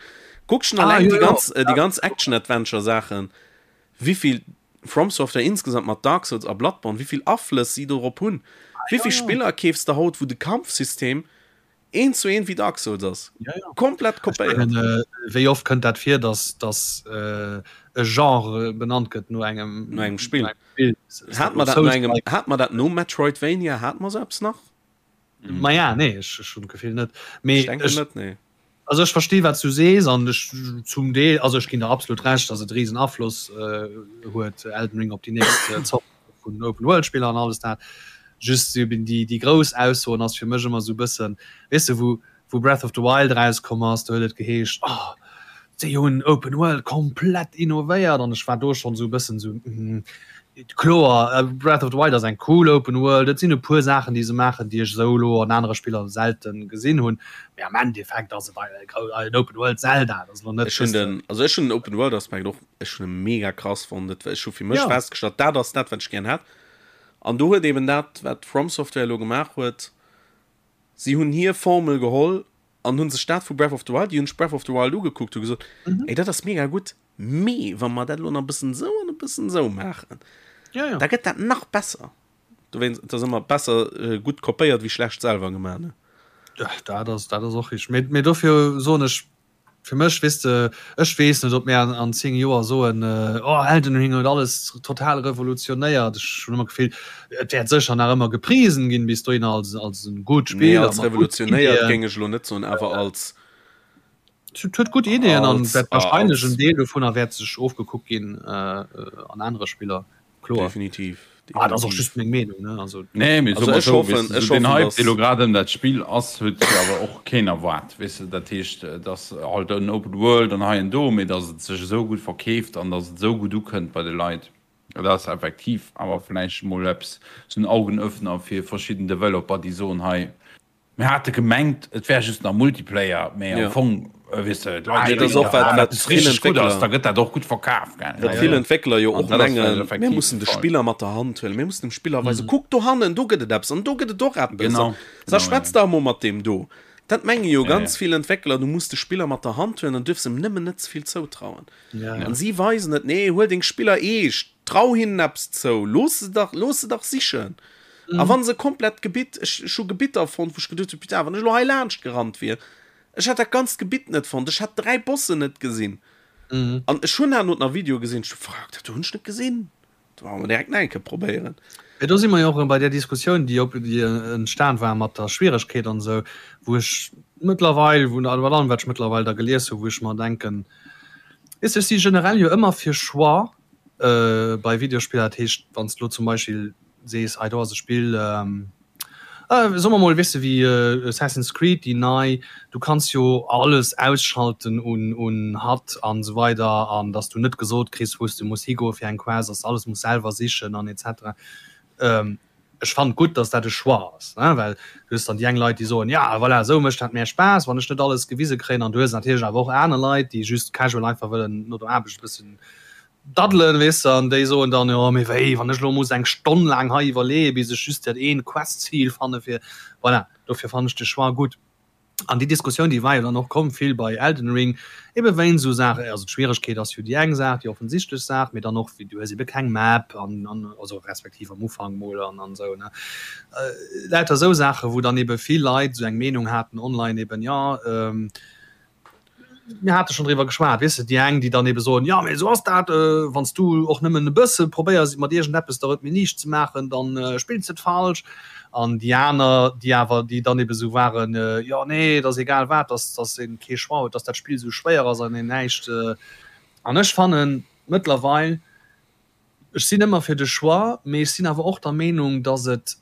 Kuck schon ah, allein ja, die ganz, äh, die ganz Action-Adventure-Sachen, wievill From Software insgesamt mat Dark Souls a Bloodborne, wievill Aflëss sie dorop hunn. Ah, wievill ja. Spiller keefs de haut, wou de Kampfsystem een zu een wéi Dark Souls ass. Ja, ja. Komplett kopéiert. Meine, äh, wéi oft kënnt dat vir, dass, dass äh, e Genre benannt gëtt no engem, no engem Spill. Spill. Hat man dat no engem, hat man dat no Metroidvania, hat man so eppes nach? Mhm. Ma ja, nee, ech, ech hunn d'Gefill net. Mee Ech denken ech, net, nee. also ech versti wat du sees an ech zum Deel, also ech ginn der absolut Recht, dass et riesen Afloss äh, huet Elden Ring op déi nächst äh, Zort vun Open World Spiller an alles dat. Just eben déi, déi grouss Aussoen ass fir mech ëmmer sou bëssen, weess de, wou Wou Breath of the Wild erauskomm ass, do huet et geheescht, oh, déi hunn Open World komplett innovéiert an ech war do schonn esou e bëssen esou, mm, kloer, Breath of the Wild ass eng cool Open World, et sinn e puer Saachen, déi se maachen, déi ech esou elo an anere Spiller selte gesinn hunn, mee am Endeffekt ass et en Open World Zelda, dat ass elo net. Ech hunn den, also ech hunn den Open World Aspekt och, ech hunn e mega krass fonnt, et, ech hu fir mech festgestallt, dat ass dat, wat ech gären hätt an do huet eben dat, wat From Software elo gemaach huet, Si hunn hir Formel geholl an hunn sech dat vu Breath of the Wild, déi hunn sech Breath of the Wild ugekuckt, hu gesot, ey dat ass mega gutt, mee wa mer dat elo nach e bëssen esou an e bëssen esou maachen, Ja, ja. da gëtt dat nach besser. Dowéinst, et ass ëmmer besser gutt kopéiert wéi schlecht selwer gemaach, ne? Ja, dat ass, dat ass och richteg. Mee, mee dofir soen ech, Fir mech, weess de, ech weess net, ob mir an 10 Joer soen, oh Elden Ring huet alles total revolutionéiert. Ech hunn ëmmer d'Gefill, et wäert sécher nach ëmmer geprisen ginn bis dohinner als, als e gutt Nee, Spill a als mat gudden revolutionéiert Ideeën. géing ech elo net soen, awer als. Et huet gutt Ideeën an Als, wäert warscheinlech als. en Deel dovunner wäert sech ofgekuckt ginn an anere Spiller. Kloer. Definitiv, Ah, dat ass och definitiv. just meng Meenung, ne? Also. Nee, mee Also soe mer ech esou, hoffen, weess de, ech esou deen hoffen, Hype, dee dass. lo grad ëm dat Spill ass, huet jo awer och keen erwaart, weess de. Dat heescht, et ass halt en Open World an hei an do, mee datt et sech esou gutt verkeeft an datt et esou gutt ukënnt bei de Leit, dat ass effektiv awer vläicht emol eppes, esou en Augenöffner fir verschidden Developer, déi soen, hei, Mir hate gemengt, et wär just nach Multiplayer, mee am Fong, weess de, d'Leit Mee dat ass och wat, wat eppes vill richteg gutt ass, Entwéckler, da gëtt dat och gutt verkaf, gell? wat vill Entwéckler jo An och dat ass vläicht mengen, mir effektiv de mussen de Fall. Spiller mat der Hand huelen, mir mussen dem Spiller weisen, kuck dohannen, do gëtt et eppes an do gëtt et och eppes Genau, an sa genau, ja. schwätz dach emol mat deem do. Dat menge jo Ja, ganz ja. vill Entwéckler, du muss de Spiller mat der Hand huelen an duerfs em nëmmen net ze vill zoutrauen. Ja, ja. An si weisen et, nee, huel deng Spiller eescht, trau hinnen eppes zou, looss se dach, looss se dach sichen. A wann se komplett Gebitt, ech, ech hu Gebitter fonnt, wou ech geduecht hu, putain, wann ech elo hei laanscht gerannt wier, ech hätt dat ganzt Gebitt net fonnt, ech hätt 3 Bossen net gesinn. An ech hunn herno nach Videoe gesinn, ech hu, fuck, dat do hunn ech net gesinn, do wollte mer direkt nach eng Kéier probéieren. Mee do si mer jo och erëm bei där Diskussioun, déi op, déi entstan war mat der Schwieregkeet an esou, wou ech mëttlerweil, wou, bei allem wat ech mëttlerweil da gelies hu, wou ech mer denken, weess de, ech si generell jo ëmmer fir Choix bei Videospiller, dat heescht, wann s de elo zum Beispill sees, hei do ass e Spill, soe mer mol, weess de, wéi Assassin's Creed, déi nei, du kanns jo alles ausschalten un un HUD an esou weider an datt s du net gesot kriss, wou s de muss higoe fir eng Quest, datt s de alles muss selwer sichen an et cetera. Ech fannen gutt, datt dat e Choix ass, ne, well du hues dann déi eng Leit, déi soen, ja voilà, esou mécht dat mär Spaass, wann ech net alles gewise kréien an du hues natierlech awer och aner Leit, déi just casual einfach wëllen no der Aarbecht e bëssen Daddelen, weess de, an déi soen dann, jo mee wéi, wann ech elo muss eng Stonn laang hei iwwerleeën, bis ech just dat eent Quest-Zil fanne fir, voilà, dofir fannen ech de Choix gutt. An déi Diskussioun, déi war jo dann och komm vill bei Elden Ring, ebe wéinst esou Saachen, also d'Schwieregkeet ass jo déi eng Saach, déi offensichtlech Saach, mee dann och, wéi du hues ebe keng Map an, an also respektiv am Ufank mol an, an esou, ne. Lauter esou Saachen, wou dann ebe vill Leit esou eng Meenung haten online eben, jo, Mir hate schonn driwwer geschwat, weess de, déi eng, déi dann ebe soen, jo, mee esou ass dat, wann s du och nëmmen e bësse probéiers, mat iergendeppes der et méi liicht ze maachen, da spills de et falsch. An déi aner, déi awer, déi dann ebe sou waren, jo, nee, et ass egal wat, dass, dass ee kee Choix huet, dass dat Spill esou schwéier ass an een näischt. An ech fannen mëttlerweil, ech sinn ëmmer fir de Choix, mee ech sinn awer och der Meenung, dass et,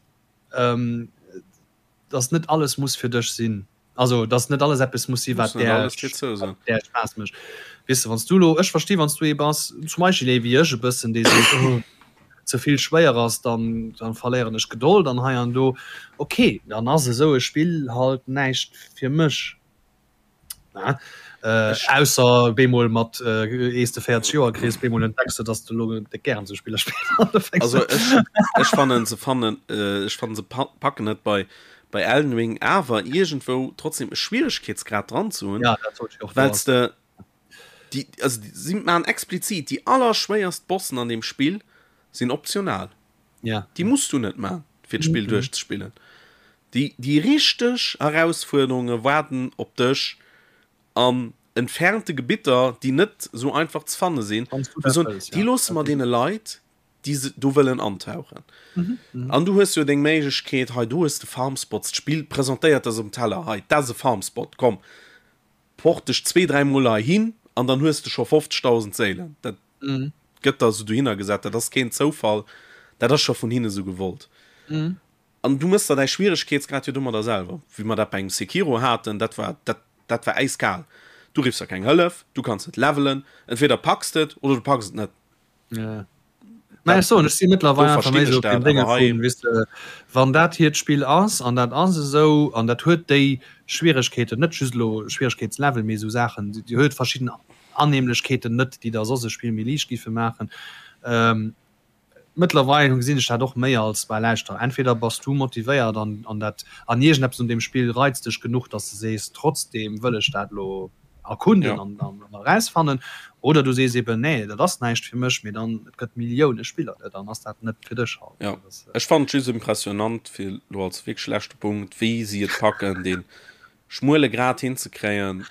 dass net alles muss fir dech sinn. Also dass net alles eppes muss si wat där där Spaass mécht. Weess de wann s du lo, ech versti wann s du ee bass zum Beispill ee wéi ech e bëssen dee seet oh ze vill schwéier ass, dann dann verléieren ech Gedold an hei an do. Ok, dann ass esou e Spill halt näischt fir mech. Ne? Äh, ausser bemol mat äh, ees de 40 Joer kriss, bemol entdecks du, dass du lo déck gären sou Spiller spills. Also ech, ech fannen se fannen äh, ech fannen se packen et bei bei Elden Ring awer iergendwou trotzdem e Schwieregkeetsgrad dran ze hunn, ja, dat sollt ich och well de déi also si man explizit déi allerschwéierst Bossen an dem Spill sinn optional. Ja. Déi muss du net man fir d'Spill mhm. duerchzespillen. Déi déi richteg Erausfuerderunge waarden op dech an entfernte Gebitter, déi net sou einfach ze fanne sinn. Déi loosse mer deene Leit, déi se do wëllen antauchen. An du hues jo deng Méiglechkeet, hei do hues de Farmspots, d'Spill presentéiert der se um Teller, hei dat ass e Farmspot, komm port dech zwee, dräi Mol heihin an dann hues de scho 50.000 Séilen. Dat gëtt der esou dohinner gesat, dat ass keen Zoufall, dat ass scho vun hinne sou gewollt. An du mëss der däi Schwieregkeetsgrad jo domadder selwer. Wéi mer dat bei engem Sekiro haten, dat war, dat, dat war äiskal. Du riffs der keng Hëllef, du kanns net levelen, entweder packs de et oder du packs et net. Ja. Mä ech soen, ech si mëttlerweil einfach méi sou op dem Dénge vun, weess de, wann dat hiert Spill ass an dat ass esou an dat huet déi Schwieregkeeten, net just elo Schwieregkeetslevel, mee esou Saachen, déi huet verschidden Annehmlechkeeten net, déi der soss e Spill méi liicht giffe maachen. Mëttlerweil gesinn ech dat och méi als, bah lauschter, entweder bass du motivéiert an an dat an iergendeppes un deem Spill reizt dech genuch, dass de sees, trotzdeem wëll ech dat elo erkunden an an erausfannen, oder du sees eben, nee, dat ass näischt fir mech, mee dann, et gëtt Millioune Spiller, dann ass dat net fir dech halt. Jo, ech fannen et just impressionant, fir elo als wierklech leschte Punkt, wéi si et packen, dee schmuele Grad hinzekréien,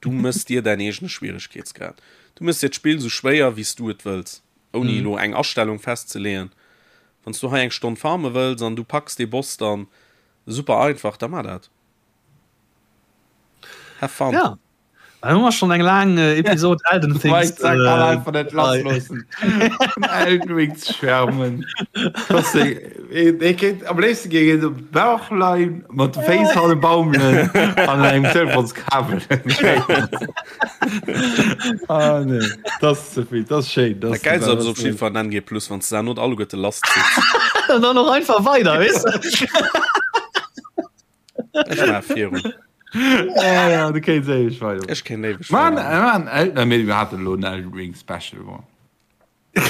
Du mëss dir däin eegene Schwieregkeetsgrad. Du mëss dir d'Spill sou schwéier, wéi s du et wëlls, ouni elo eng Astellung festzeleeën. Wann s du hei eng Stonn farme wëlls an du packs dee Boss dann super einfach, da mar dat. Have fun! Ja, da hu mer schonn eng laang Episod Elden Things. Mike kann einfach net lassloossen, vun Elden Ring ze schwärmen. Ee kéint am léifste géing een op Bauch leien, mat de Féiss hanne baumelen an engem Telefonskabel. Ah nee, dat ass ze vill, dat ass schéin. Dat Geilst ass op jiddwer Fall NG Plus, wann s de dat alleguerte lass zitts. An dann och einfach weider, weess de. Ech maach virun. Ja, ja, du kéints éiweg weider. Ech kéint éiweg weider. Man, man, mir haten elo en Elden Ring Special. Bon. Lo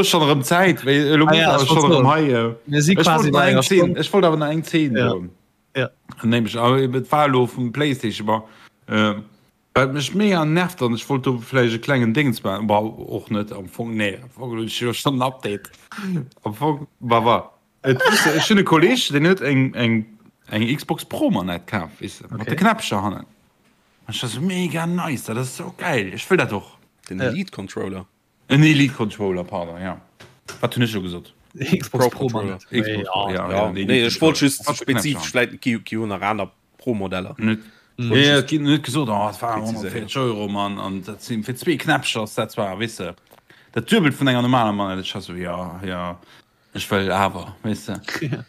schon erëm Zäit Ech wollt awer nach eng Zeen soen. Nämlech et war elo vum Playstation war wat mech mega nervt an ech wollt do vläicht e klengen Déngens maachen, bon och net am Fong, nee am Fong hunn ech jo schonn en Update am Fong, bah wa et weess de ech hunn e Kolleeg deen huet eng eng eng Xbox Pro Manett kaf weess de mat de Knäppcher hannen. Ech war sou mega nice, dat ass sou geil, ech wëll dat och. Den Elite Controller. En Elite Controller, pardon, ja. Wat hunn ech elo gesot? Xbox Pro Controller. Xbox Pro, ja, ja, nee, ech wollt just spezifesch, vläit gi gi jo nach aner Pro Modeller. Net, nee, et ginn net gesot, oh, et war 140 Euro, Mann, an dat sinn fir zwee Knäppcher ass dat zwar, weess de, dat Duebelt vun enger normaler Manette. Ech war sou, ja, ja. Ech wëll awer, weess de.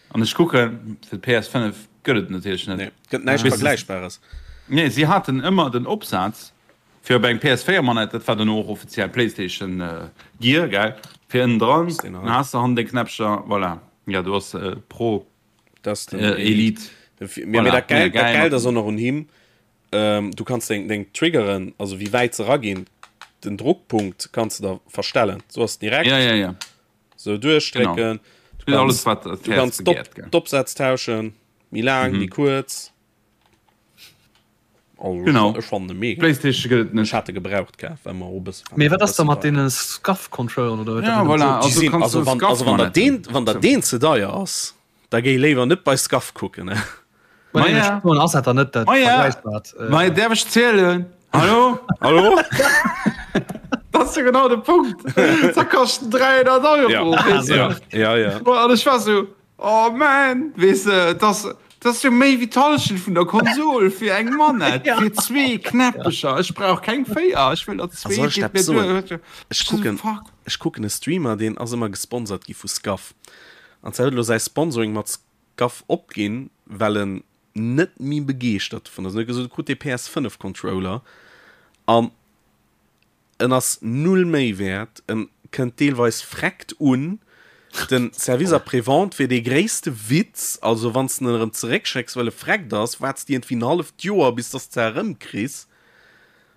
An ech kucken, fir d'PS5 gëtt et natierlech net. Nee, gëtt näischt Vergläichbares. Nee, si haten ëmmer den Opsaz fir op eng PS4-Manett, dat war duerno och offiziell PlayStation Gear, gell, fir ënnen dran, dann has de hannen deng Knäppcher, voilà. Jo, do ass Pro, Elite. Mee dat Gäilt ass och nach un him, Du kanns deng, deng Triggeren, also wéi wäit se raginn, den Druckpunkt kanns de da verstellen. So ass direkt. Ja, ja, ja. Sou duerchdrécken. Genau. Du kanns, du kanns d'Opsätz tauschen. Méi laang, méi kuerz. Also, Genau. Ech fannen e mega. Playstation gëtt et net. Ech hat e gebraucht kaf, well mer och e bësse Mee wat ass da mat deene Scuff-Controlleren oder wat Ja, dat voilà. sot? Déi Also sinn, kanns also du wann, also wann der Scuff-Manetten. deen, wann der deen ze deier ass, da géi léiwer net bei Scuff kucken, ne? Ma nee, Maja. ech soen, ass dat dann net dat Maja. Vergläichbart? Äh, Mei, däerf ech zielen? Hallo? Hallo? Dat ass jo genau de Punkt. Da kaschten 300 Euro. Ja, weess du? ja, ja, ja. An ech war sou, oh man, weess de, dat ass jo méi wéi d'Hallschent vun der Konsol fir eng Manett, Ja. fir zwee Knäppecher. Ech brauch keng véier, ech wëll der A zwee, soll ech geet dat mir soen? duer. Ech kucken, Fuck. ech kucken e Streamer, deen ass ëmmer gesponsert gi vu Scuff. An zwar huet elo säi Sponsoring mat Scuff opginn, well en net méi begeeschtert dovun ass. En huet gesot, e krut dee PS5 Controller an en ass null méi wäert, en kënnt deelweis freckt un. Den Service après-vente wier dee gréisste Witz, also wann s de en erëm zeréckschécks, well e freckt ass, waarts de iergendwéi en halleft Joer, bis dass de erëmkriss.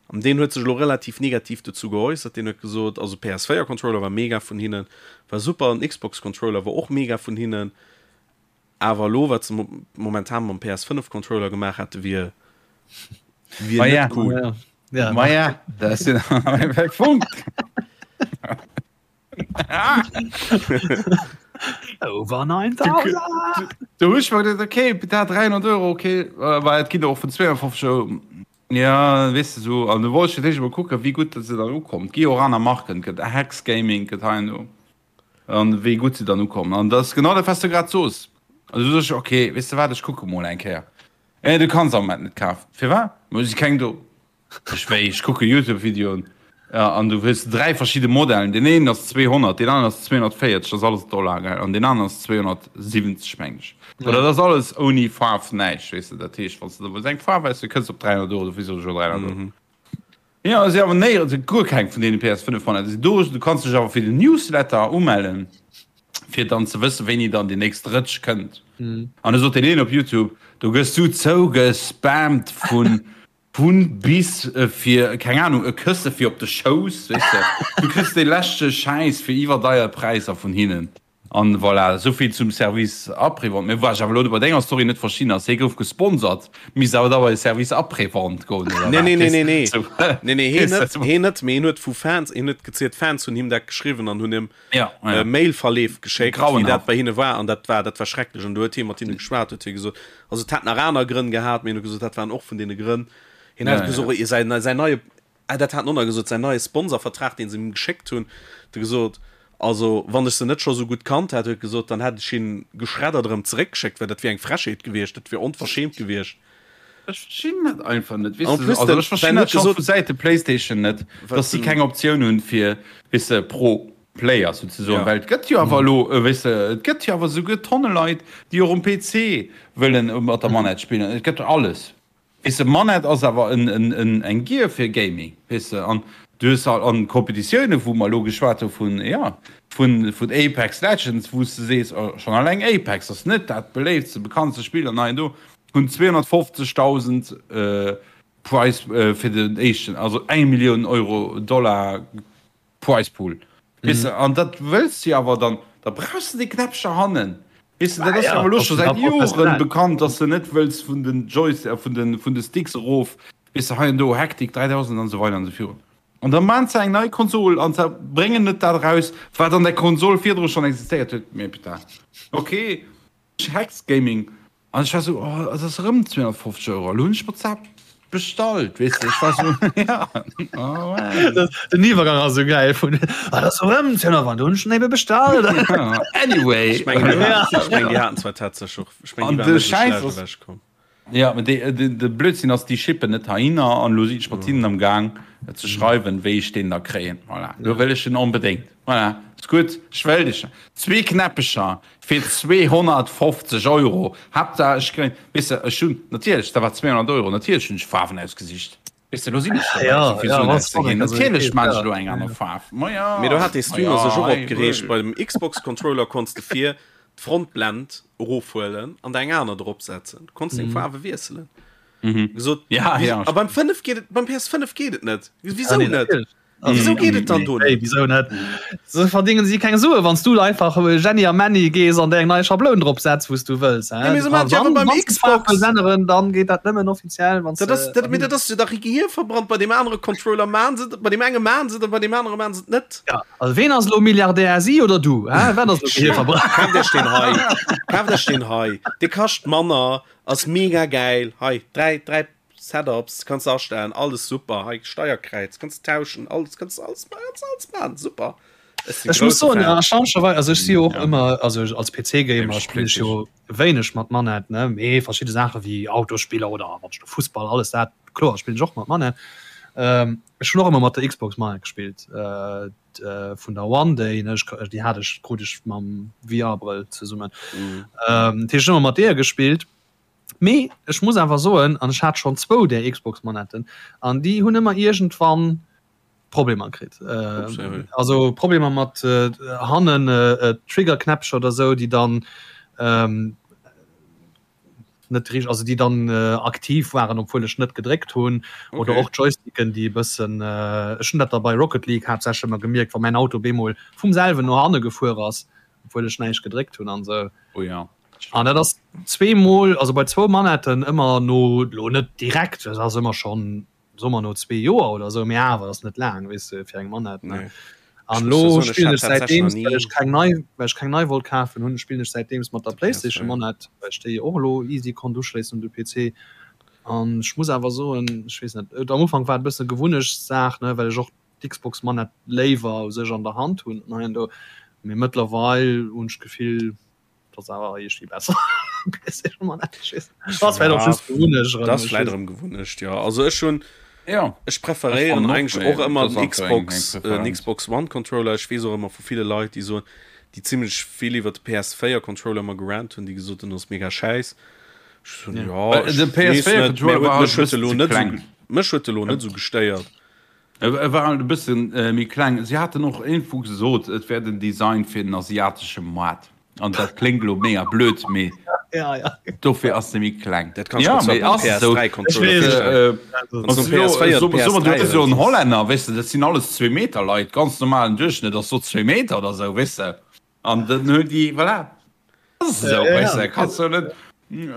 An deen huet sech elo relativ negativ dozou geäussert. Deen huet gesot, also PS4 Controller war mega vun hinnen, war super, den Xbox Controller war och mega vun hinnen, awer elo wat se momentan mam PS5 Controller gemaach hätte wier wier Ma net ja. cool. Ja. Ja. Ma ja, dat ass den Punkt. Over 9000! Du hu ech mer geduecht, okay, dat 300 Euro, okay, äh, well et ginn der och vun 52 Euro. Ja, weess de sou, an du wollt ech fir d'éischt emol kucken, wéi gutt se dann ukommt. Gi och aner Marken, gëtt Hex Gaming, gëtt hei an do, an wéi gutt se dann ukommen. An dat ass genau dat, wat s du grad soos. Also du soos, okay, weess de wat, ech kucke mol eng Kéier. Eh, du kanns am Moment net kafen. Firwat? Ma et si keng do. Ech wéi, ech kucke Youtube-Videoen an du hues 3 verschidde Modellen. Deen een ass 200, deen aneren ass 240, dat ass alles Dollar, gell, an deen aneren ass 270, meng ech. Oder dat ass alles ouni Faarf, näischt, weess de. Dat heescht, wann s de da wëlls eng Faarf aus, du kënns op 300 Euro, dofir soen ech jo 300 Euro. Jo, et si awer néierens, et guer keng vun deene PS5 Modeller sinn do. Du kanns dech awer fir den Newsletter umellen, fir dann ze wëssen, wéini dann déi nächst Rëtsch kënnt. An da sot deen een op YouTube, do gëss du zougespammt vun Vun bis fir, keng Ahnung, e Kësse fir op de Schouss, weess de. Du kriss dee leschte Schäiss fir iwwerdeier Präisser vun hinnen. An voilà, esouvill zum Service après-vente. Mee wat ech awer elo bei denger Story net verstinn ass, hie gouf gesponsert, misst awer da bei de Service après-vente goen, oder Nee, wat? nee, nee, nee, nee. Sou, Nee, nee, hien weess net, de. hien net, mee hien huet vu Fans, hien huet gezielt, Fans hunn him dat geschriwwen an hunn him Ja, ja. äh, Mailverleef geschéckt, wéi dat Grauenhaft. bei hinne war an dat war, dat war schrecklech an du huet hie mat hinne geschwat, huet hie gesot, also et hätt nach aner Grënn gehat, mee hien huet gesot, dat waren och vun deene Grënn. Hien Ja, hat gesot, ja. säin, säin neie, ah, dat hat en och nach gesot, säin neie Sponsorvertrag, deen se him geschéckt hunn, huet e gesot, also wann ech se net scho sou gutt kannt hätt, huet e gesot, dann hätt ech hien geschreddert erëm zeréckgeschéckt, well dat wier eng Frechheet gewiescht, dat wier onverschämt gewiescht. Ech verstinn dat einfach net, weess En de, plus also den, ech verstinn ben dat huet scho gesot, vu Säite PlayStation net, wat dass si den, keng Optioun hunn fir, weess de, pro Player souzesoen, ja. well et gëtt jo awer elo, weess de, et gëtt jo awer souguer tonne Leit, déi och um PC wëllen mat der Manette spillen, et gëtt alles, weess de, Manette ass awer en, en, en, eng Gear fir Gaming, weess de, an du hues al an Competitiounen, wou mer elo geschwat hu vun, jo, vun, vun Apex Legends, wou s de sees, oh, schonn alleng Apex ass net dat beléiftste, bekanntste Spill an hei an do, hunn 250.000 Prize fir den éischten, also eng Millioun Euro, Dollar Prize Pool. Weess de, an dat wëlls de jo awer dann, da brauchs de déi Knäppcher hannen. Weess de, dat ass jo awer elo scho säit Joren bekannt, dass de net wëlls vun den Joys, vun de, vun de Sticks erof, weess de, hei an do, Hektik 3000 an esou weider an esou virun. An da maan se eng nei Konsol an se bréngen net dat eraus, wat an der Konsol virdru schonn existéiert huet. Mee putain, okay, Hex Gaming An ech war sou, oh, et ass erëm 250 Euro, elo hunn ech mer d'Saach bestallt, weess de, ech war sou, ja, oh man. Den Iwwergang ass sou gäil vun, ah, dat ass erëm 250, do hunn ech en ebe bestallt. Anyway. Ech mengen, déi haten, ech mengen, déi haten zwar tatsächlech och, ech mengen, An déi de waren net esou Schäiss schlecht ass, ewechkomm. ja, mä dee, de, de Blödsinn ass, déi shippen net heihinner an elo sinn ech mat hinnen am Gaang ze schreiwen, wéi ech deen da kréien. Voilà, elo wëll ech en onbedéngt. Voilà, ass gutt, ech wëll dech. Zwee Knäppecher fir 250 Euro, Haaptsaach ech kréien, weess de, ech hunn natierlech, dat war 200 Euro, natierlech hunn ech Faarwen ausgesicht, weess de, elo sinn ech dobäi, esou vill Suen auszeginn, natierlech maan ech elo eng aner Faarf, ma jo, Mee do hat dee ma Streamer jo, sech och hei, opgereegt, bei dem Xbox Controller konns de vir d'Frontblend erofhuelen an der eng aner drop setzen, du konns deng Faarwe wiesselen. Gesot, Ja, ja, a beim 5 geet et, beim PS5 geet et net, wisou Nee, net? natierlech. Wisou geet et dann do net? Wisou net? Se verdingen si keng Sue wann s du einfach Jenny a Männi gees an der eng nei Schabloun drop setz wou s du wëlls. Ja, mee se maachen et jo awer beim Xbox. Änneren, dann geet dat nëmmen offiziell wann s Dat ass, dat, mee dat ass jo dach Gehir verbrannt. Bei deem anere Controller maachen se et, bei deem enge maachen se et a bei deem anere maachen se et net. Ja, also ween ass elo Milliardär, si oder du? Hä? Wat ass elo Gehir verbrannt? Kaaft iech deen hei, kaaft iech deen hei, dee kascht manner, ass mega gäil. Hei, 3, 3 Setups kanns de astellen, alles super, hei Steierkräiz kanns de tauschen, alles kanns de alles kanns alles maachen, super. Ech sinn Ech muss grousse soen, Fan. erstaunlicherweis, also ech si jo och ëmmer, also als PC-Gamer spillen ech jo wéineg mat Manette, ne, mee verschidde Saache wéi Autosspiller oder wann ech do Fussball, alles dat, kloer spillen ech och mat Manette. Ech hunn och ëmmer mat der Xbox Manette gespillt, vun der One, déi, ne, ech, déi hat ech, krut ech mam VR-Brëll zesummen. Dat heescht, ech hunn ëmmer mat deeër gespillt. Mee ech muss awer soen, an ech hat schonn zwou där Xbox-Manetten, an déi hunn ëmmer iergendwann Problemer kritt. Also Problemer mat hannen Triggerknäppcher oder sou, déi dann net richteg, also déi dann aktiv waren, obwuel ech net gedréckt hunn. Oder och Joysticken, déi e bëssen, ech hunn dat da bei Rocket League haaptsächlech ëmmer gemierkt, wa mäin Auto bemol vum selwen no hanne gefuer ass, obwuel ech näischt gedréckt hunn an sou. Oh ja. An dat ass zweemol, also bei zwou Manetten ëmmer no, lo net direkt, dat ass ëmmer schonn, soe mer no zwee Joer oder esou, mee awer ass net laang, weess de, fir eng Manett, ne. Nee. An Ech muss lo jo soen, ech spillen hat ech tatsächlech nach säitdeems, well ni ech keng nei, well ech keng nei wollt kafen hunn, spillen ech säitdeems mat der de PlayStation PS4. Manett, well ech déi och elo easy konnt uschléissen un de PC. An ech muss awer soen, ech weess net, et am Ufank war et e bësse Gewunnechtssaach, ne, well ech och d'Xbox Manett léiwer u sech an der Hand hunn an hei an do, mee mëttlerweil hunn ech d'Gefill, Dat ass awer iergendwéi besser. Dat ass vläicht erëm Gewunnecht, jo. Also ech hunn, ja, ech preferéieren eigentlech och ëmmer den Xbox, den Xbox One Controller. Ech weess och ëmmer vu ville Leit, déi soen, déi zimlech vill iwwer de PS4 Controller ëmmer gerant hunn, déi gesot hunn, ass mega schäiss. Ech soen, jo, ech weess net, mä huet mech huet elo net esou, mech huet elo net esou gestéiert. E war halt e bësse méi kleng. Si haten och iergendwou gesot, et wär den Design fir den asiatesche Moart. An dat kléngt elo mega blöd, mee dofir ass e méi kleng. Dat kanns du der zwar beim PS3-Controller virstellen. Wann s du PS4 oder PS3 hues. So en Hollänner, weess de, dat sinn alles Zwee-Meter-Leit, ganz normalen Duerchschnëtt ass so zwee Meter oder sou, weess de. An dann hunn déi, voilà. Esou, weess de, kanns du net.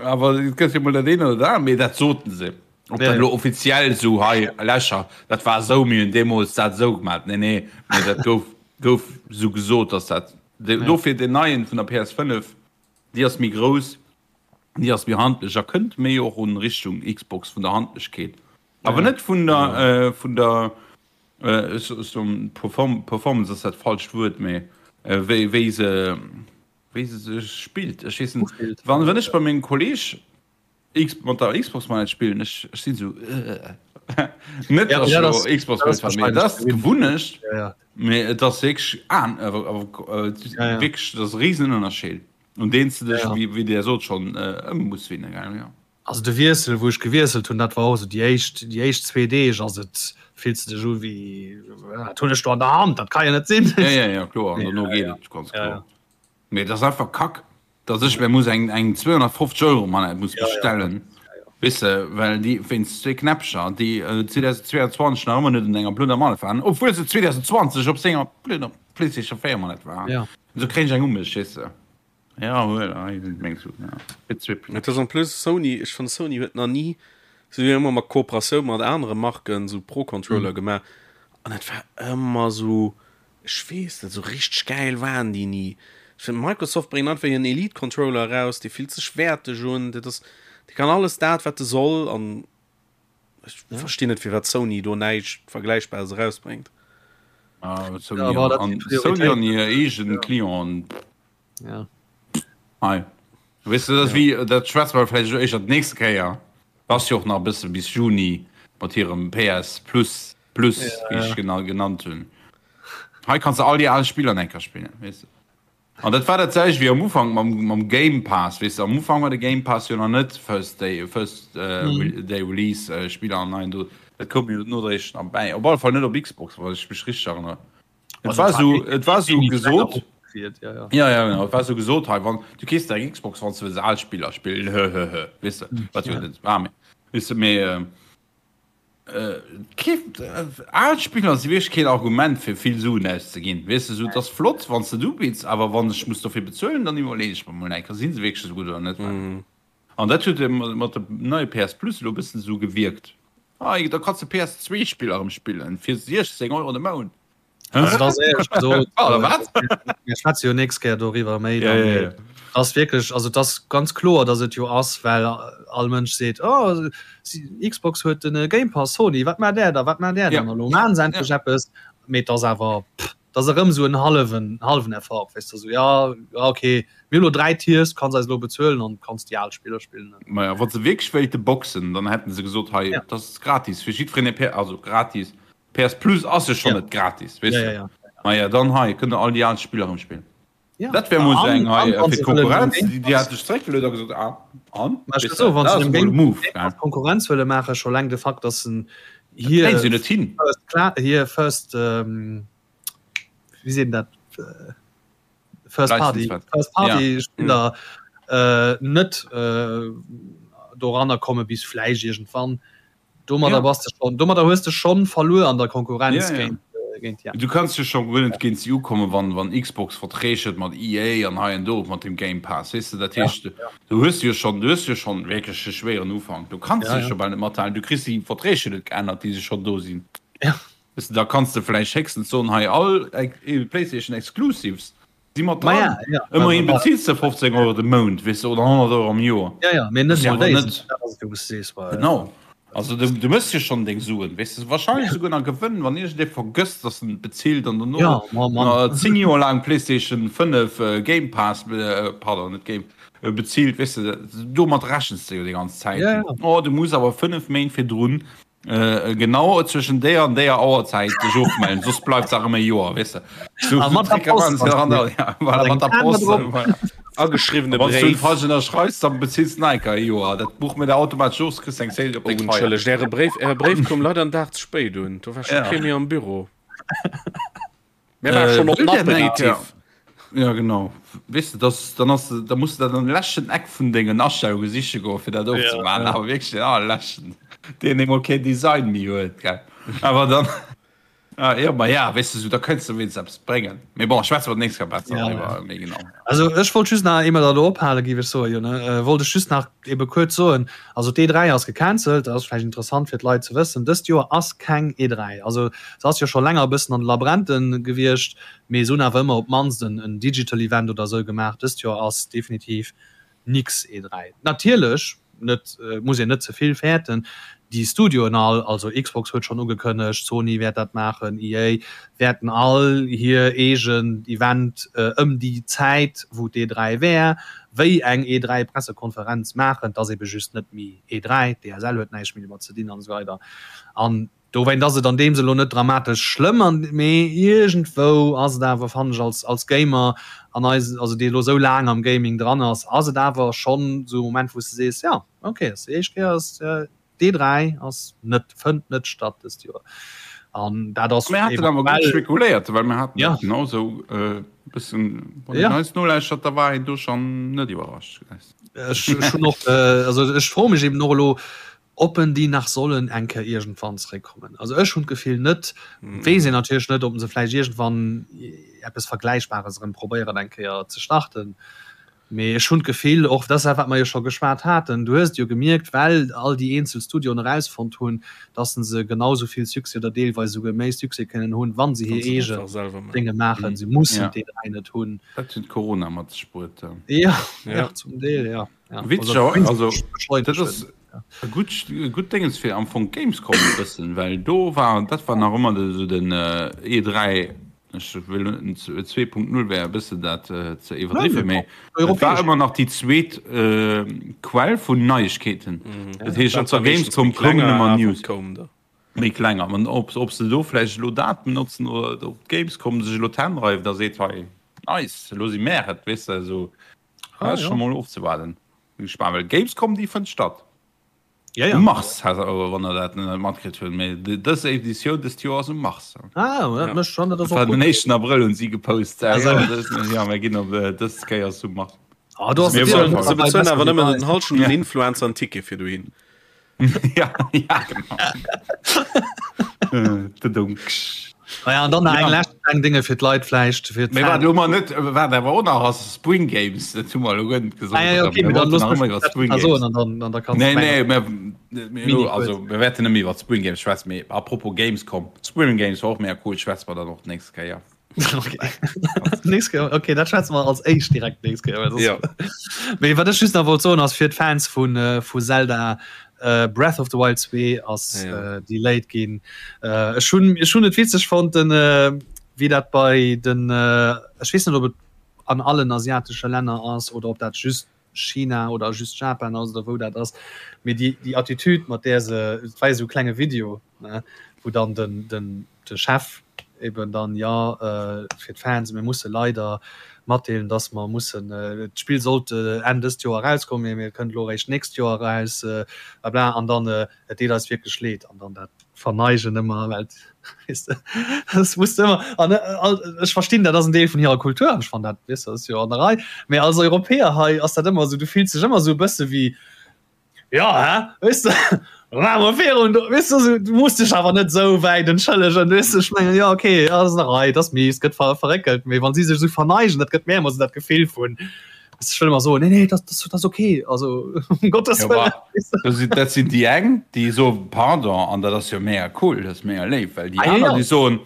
Awer et gëtt jo mol dat eent oder dat anert, mee dat soten se. Ob dat elo offiziell esou hei, Lächer, dat war esou, mir hunn deemools dat esou gemaat. Nee, nee, mee dat gouf, gouf esou gesot, dass dat. Dofir deen neien vun der PS5, déi ass méi grouss, déi ass méi handlech a kënnt méi och un Richtung Xbox vun der Handlechkeet. Awer net vun der, vun der, ech soen Performance ass dat falscht Wuert, mee wéi, wéi se, wéi se sech spillt. Ech weess net, wann, wann ech bei mengem Kolleg X, mat der Xbox Manette spillen, ech, ech sinn esou net, dass ech elo Xbox Manette mee dat ass d'Gewunnecht, mee et ass wierklech an, wierklech, dat ass e Risenënnerscheed, un deen s de dech, wéi Dir sot, schonn ëm muss winnen, gell, jo. Also de Wiessel, wou ech gewiesselt hunn, dat war och esou déi éischt, déi éischt zwee Deeg ass et, fills de dech u wéi, wat hunn ech do an der Hand, dat ka jo net sinn. Ja, ja, ja, kloer, an dono geet et ganz kloer. Mee et ass einfach Kack, datt ech mir muss eng, eng 250 Euro Manette muss bestellen, weess de, well déi wéinst zwee Knäppcher, déi 2022 nach ëmmer net un enger blöder Manette waren, obwuel se 2020 op senger blöder PlayStation 4 Manette waren. Esou kréien ech eng u mech, weess de. Ja, huel, hei sinn meng Suen, ja. Fir zwee Et ass en plus Sony, ech fannen Sony huet nach ni, se hu jo ëmmer mat Kooperatioun mat anere Marken sou Pro Controller gemaach an et war ëmmer sou, ech weess net, sou richteg gäil waren déi ni. Ech fannen Microsoft bréngt einfach hiren Elite Controller eraus, dee fillt sech wäerteg un, dat ass, dee kann alles dat wat e soll an Ech ja. verstinn net firwat Sony do näischt Vergläichbares erausbréngt. Ah, Sony, ja, an, Sony an hir eegen ja. Clienten. Ja. Hei. Weißt du, das ja. wie, dat schwätze mer vläicht éischter d'nächste Kéier. Ass jo och nach e bësse bis Juni mat hirem PS Plus Plus, ja. wéi ech genau genannt hunn. Hei kannst du all déi al Spiller enker spillen, weess du. An dat war dat selwecht wéi am Ufank mam, mam Game Pass, weess de, am Ufank war de Game Pass jo nach net First Day, First Day Release Spiller an neien do, dat koum jo nodréiglech nach bäi, op alle Fall net op Xbox, wann ech mech richteg erënnere. Et war esou, et war esou gesot, jo jo genau, et war esou gesot, hei wann, du keefs der eng Xbox wann s de wëlls al Spiller spillen, hëhëhë, weess de, wat jo net war, mee weess de, mee. Kee, al Spiller si wierklech keen Argument fir vill Suen auszeginn. Weess de, sou, et ass flott wann s de et ubidds, awer wann ech muss dofir bezuelen, dann iwwerleeën ech mer mol eng Kéier, si se wierklech esou gutt oder net. An dat huet mat dem neie PS Plus elo e bëssen esou gewierkt. Hei, da kanns de PS2-Spiller erëm spillen fir 16 Euro de Mount. Also das éierlech gesot, Oder wat? Mir schwätze jo nächst Kéier doriwwer méi. Ja, ja, ja. Das wierklech, also das ganz kloer, dass et jo ass, well all Mënsch seet, oh, Xbox huet den Game Pass, Sony, wat maacht där da, wat maacht där dann? Elo maachen se endlech eppes, mee et ass awer, pff, dat ass erëm esou en hallwen, hallwen Effort, weess de, esou, ja, ja, okay, mir hu lo 3 Tiers, du kanns eis elo bezuelen an kanns déi al Spiller spillen. Maja, wa se wierklech wéilte boxen, dann hätten se gesot, hei, dat ass gratis fir jiddwereen, also gratis, PS Plus ass jo schonn net gratis, weess de. Maja, dann hei kënnt der all déi al Spiller erëm spillen. Dat wär mol esou eng hei fir d'Konkurrenz, déi hat sech zeréckgeluet a gesot, ah, an? Weess de, dat ass emol e Move, gell. Konkurrenz wëlle maachen, scho laang de Fakt, datt en hir. Dat kréie se jo net hin. Hir First, wéi seet een dat? First Party, First Party Spiller net doranner komme bis vläicht iergendwann. Domadder bass de schon, domadder hues de schon verluer an der Konkurrenz ja, géint, ja. géint ja. Du kanns jo schon guer net géint si ukommen, wann, wann Xbox Verträg huet mat EA an hei an do mat dem Game Pass, weess de, dat heescht, ja, ja. du hues jo schon, du hues jo schon wierklech e schwéieren Ufank. Du kanns ja, ja. jo bal net mathalen, du kriss déi Verträg jo net geännert, déi se schon do sinn. Ja. Weess de, da kanns de vläicht héchstens soen, hei all PlayStation Exclusives Si mat dran. Ja, ja. Ëmmerhin bezills de 15 Euro de Mount, weess de, oder 100 Euro am Joer. Ja, ja, mee net mol déi. Genau. Also du, du mëss jo schonn deng Suen, weess de, wahrscheinlech souguer nach Gewënn, wann iergendee vergësst, dass en bezilt an dono ja, ma, ma. 10 Joer laang PlayStation 5 äh, Game Pass, äh, pardon, net Game, äh, bezilt, weess de, domat rechens de jo déi ganz Zäit. Ja, ja. Oh, du muss awer 5 Méint virdrun Genau zwëschen déier an déier Auerzäit dech ofmellen, soss bleift se erëm e Joer, weess de. So, ah, mat der Post. Ja, voilà, mat der Post. Ageschriwwene Wann du falsch ënnerschreifs, dann bezills du nach e Joer. Dat buche mir der automatesch of, kriss eng Zéil op deng Feier. Oh, entschëllegt, Äre Bréif, Äre Bréif koum leider en Dag ze spéit un. Do war scho kee méi am Büro. Mir war schon op den Aperitif. Ja genau weess de dass dann ass da muss du dat an de leschten Eck vun dengen Astellunge siche goen fir dat ofzemaachen awer wierklech den allerleschten deen emol keen Design méi huet gell awer dann ah, ja ma ja weess de sou da kënns de wéinst eppes bréngen mee bon schwätze mer d'nächst Kéier besser Ja. driwwer méi genau. Also ech wollt just nach eemol dat elo ophale giff ech soen jo ne wollt ech just nach ebe kuerz soen also d'E3 ass gecancelt dat ass vläicht interessant fir d'Leit ze wëssen dëst Joer ass keng E3 also se ass jo scho länger e bëssen an de Labränten gewiescht mee se hunn awer ëmmer op d'mannst en en digital Event oder esou gemaach dëst Joer ass definitiv nix E3 natierlech net muss een net ze vill fäerten. Déi Studioen all, also Xbox huet schonn ugekënnegt, Sony wäert dat maachen, EA, wäerten all hir eegen Event ëm déi Zäit, wou d'E3 wär, wéi eng E3-Pressekonferenz maachen. Et ass ebe just net méi E3, d'ESL huet näischt méi domat ze dinn an esou weider. An Dowéint ass et an deem Sënn elo net dramatesch schlëmm, an mee iergendwou ass et awer, fannen ech als als Gamer an eis, also dee elo sou laang am Gaming dran ass, ass et awer schonn sou e Moment wou s de sees, jo ok, ass déi éischt Kéier ass d'E3 ass net, fënnt net statt dëst Joer an dat ass Mir haten awer gutt spekuléiert, well mir haten dat genau sou e bëssen, wann een eis nolauschtert, da war een do schonn net iwwerrascht. Ech hunn och, also ech froe mech eben och elo, Ob en déi nach sollen eng Kéier iergendwann zeréckkommen. Also ech hunn d'Gefill net. Weess een natierlech net, ob se vläicht iergendwann eppes Vergläichbares erëm probéieren eng Kéier ze starten. Mee ech hunn d'Gefill, och dat ass dat wat mer jo scho geschwat haten, du hues et jo gemierkt, well all déi eenzel Studioen erausfonnt hunn, dass se genau esou vill Succès oder deelweis esouguer méi Succès kënnen hunn, wa se hir eegen Dénge maachen. Se mussen d'E3 net hunn. Dat huet Corona mat sech bruet. Jo, jo, zum Deel, jo. Witzeg, also dat ass e gutt e gutt Déngens fir am Fong d'Gamescom e bëssen, well do war dat war nach ëmmer de sou den E3, ech wëll net 2.0 wär e bëssen dat ze iwwerdriwwen, mee et war ëmmer nach déi zweet Quell vun Neiegkeeten. Dat heescht op der Gamescom koumen ëmmer News. Méi kleng an ob ob se do vläicht elo dat benotzen oder ob d'Gamescom sech elo d'Hänn reift a seet, hei nice, elo si mär et, weess de esou. Ah, ja. Schon mol ofzewaarden. Bin gespannt, well Gamescom déi fënnt statt. Ja, ja. Um Mars, wann der dat net matkritt hunn. Mee dës Editioun dëst Joer ass um Mars. Ah, dat ja. mécht schon, dat ass och den 1. Abrëll hunn si gepost. Also, ja, dës, ja, mir ginn op äh, dës Kéier ass um Mars. Ah, du hast Se bezuelen awer nëmmen den Halschen den Influencer en Ticket fir dohin. Ja, ja, genau. Äh, Naja, an dann nach eng lescht kleng Dinge fir d'Leit vläicht fir Mee wat elo mar net, wat awer och nach ass, Spring Games, dat hu mer elo guer net gesot. Ah, ja, okay, Mir dann wollten looss nach mech ëmmer iwwer dat Spring nach Games. soen an dann, an da kanns Nee, du nee, mengen. mir, mir Mini elo, kuerz. also mir wäerten net méi iwwer Spring Games schwätzen, mee apropos Gamescom, Spring Games war och mega cool, schwätze mer dann och d'nächst Kéier. Okay. Nächst Kéier, okay, dat schwätze mer als éischt direkt d'nächst Kéier, well soss. Ja. Mee wat ech just nach wollt soen ass fir d'Fans vun, vu Zelda, Breath of the Wild 2 ass Ja. delayed ginn. Ech hunn, ech hunn et witzeg fonnt, den, wéi dat bei den, ech weess net ob et an allen asiatesche Länner ass oder ob dat just China oder just Japan ass oder wou dat ass, mee déi, déi Attitude mat där se, et war jo esou e klenge Video, ne, wou dann den, den, de Chef eben dann, jo, fir d'Fans, mir musse leider matdeelen, dass mer mussen, d'Spill sollt Enn dëst Joer erauskommen, mee et kënnt elo eréischt d'nächst Joer eraus, blabla, an dann, et deet eis wierklech leed, an dann dat Verneigen ëmmer, well, weess de, das muss de ëmmer, an ech verstinn, dat ass en Deel vun hirer Kultur, an ech fannen dat, weess de, ass jo an der Rei, mee als Europäer hei ass dat ëmmer esou, du fills dech ëmmer esou e bësse wéi, Ja, hä? Weess de, maache mer virun do, weess de, esou, du muss dech awer net esou wäit entschëllegen, weess de, ech mengen, jo, okay, ass an der Rei, et ass mies, gëtt ver verréckelt, mee wann si sech esou verneigen, dat gëtt mir ëmmer esou dat Gefill vun, weess de, ech wëll ëmmer soen, nee, nee, dat, dat ass okay, also um Gottes Jo, Wëllen, bah, weess de. dat sinn, dat sinn déi eng, déi soen, pardon, an dat ass jo mega cool, dat ass mega léif, well déi Ah, jo, aner, jo. déi soen,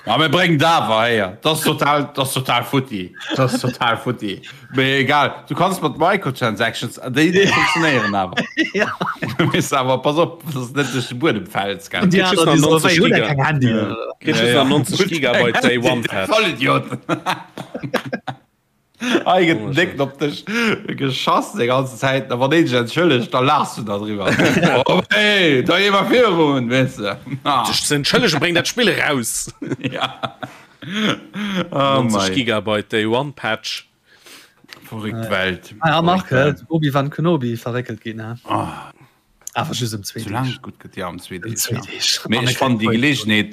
Ma mir bréngen et awer héier. Dat ass total, dat ass total futti. Dat ass total futti. Mee egal, du kanns mat Microtransactions, déi, déi funktionéieren awer. Ja. Du misst awer, pass op, dass du net duerch de Buedem fäls, gell. Déi Kritt just aner, déi nach soen, 90 wéi, hutt der Giga. keng Handyen, Ja. oder? Kritt Ja, just ja. nach 90 Gigabyte Day One Patch. Vollidioten. Hei gëtt den Décken op dech geschass déi ganzen Zäit, a wann een sech entschëllegt, da laachs du da driwwer. Oh hey, da gi mer virun, weess de. Sech ze entschëllegen, bréng dat Spill eraus! Ja. Oh 90 mei. Gigabyte Day One Patch. Verrückt Welt. Ah ja, Marc, Verrückt Welt. Obi-Wan Kenobi verréckelt ginn, he? Oh. Awer just ëm zwee Soulaang Deeg. et gutt gëtt, ja, ëm zwee Ëm Deeg, zwee ja. Deeg. Mee An ech e fannen kritt déi Voice. Geleegenheet,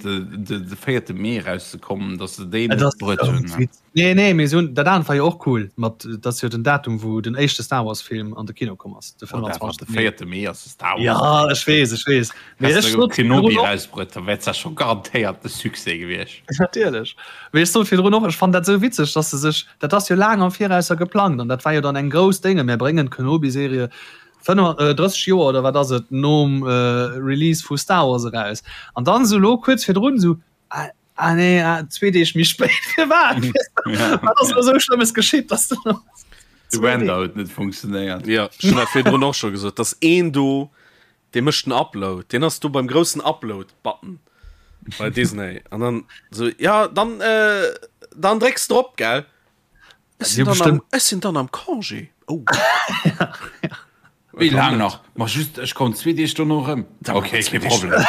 de, de véierte Mee erauszekommen, datt se déi Et net ass bruet esou hunn, ne. wit. Nee, nee, mee se hunn, dat anert war jo och cool, mat, dat ass jo den Datum, wou den éischte Star Wars Film an de Kino komm ass, de Whatever, 25. de Mee. véierte Mee ass de Star Wars Ja, Day. ech weess, ech weess. Mee Häss ech de sot Kenobi virdrun och. erausbruet, da wär et zwar scho garantéiert de Succès gewiescht. Natierlech. Mee ech sot virdrun och, ech fannen dat esou witzeg, datt se sech, dat ass jo laang am Virausser geplangt an dat war jo dann eng grouss Dénge, mär bréngen d'Kenobi-Serie 35 Joer oder wat ass et nom Release vu Star Wars eraus an dann esou elo kuerz virdrun esou ah, ah nee ah, zwee Deeg méi spéit firwat wat ass elo esou Schlëmmes geschitt dass du De Render huet net funktionéiert. Jo, ech hunn dat virdrun och scho gesot, dass een do, dee mécht den Upload, deen ass do beim groussen Upload-Button bei Disney an dann esou, ja dann äh, dann drécks drop, gell? Ech sinn dann am, ech sinn dann am Congé. Oh. Wéi laang nach? Ma just, ech kommen zwee Deeg dono erëm. Okay, kee Problem.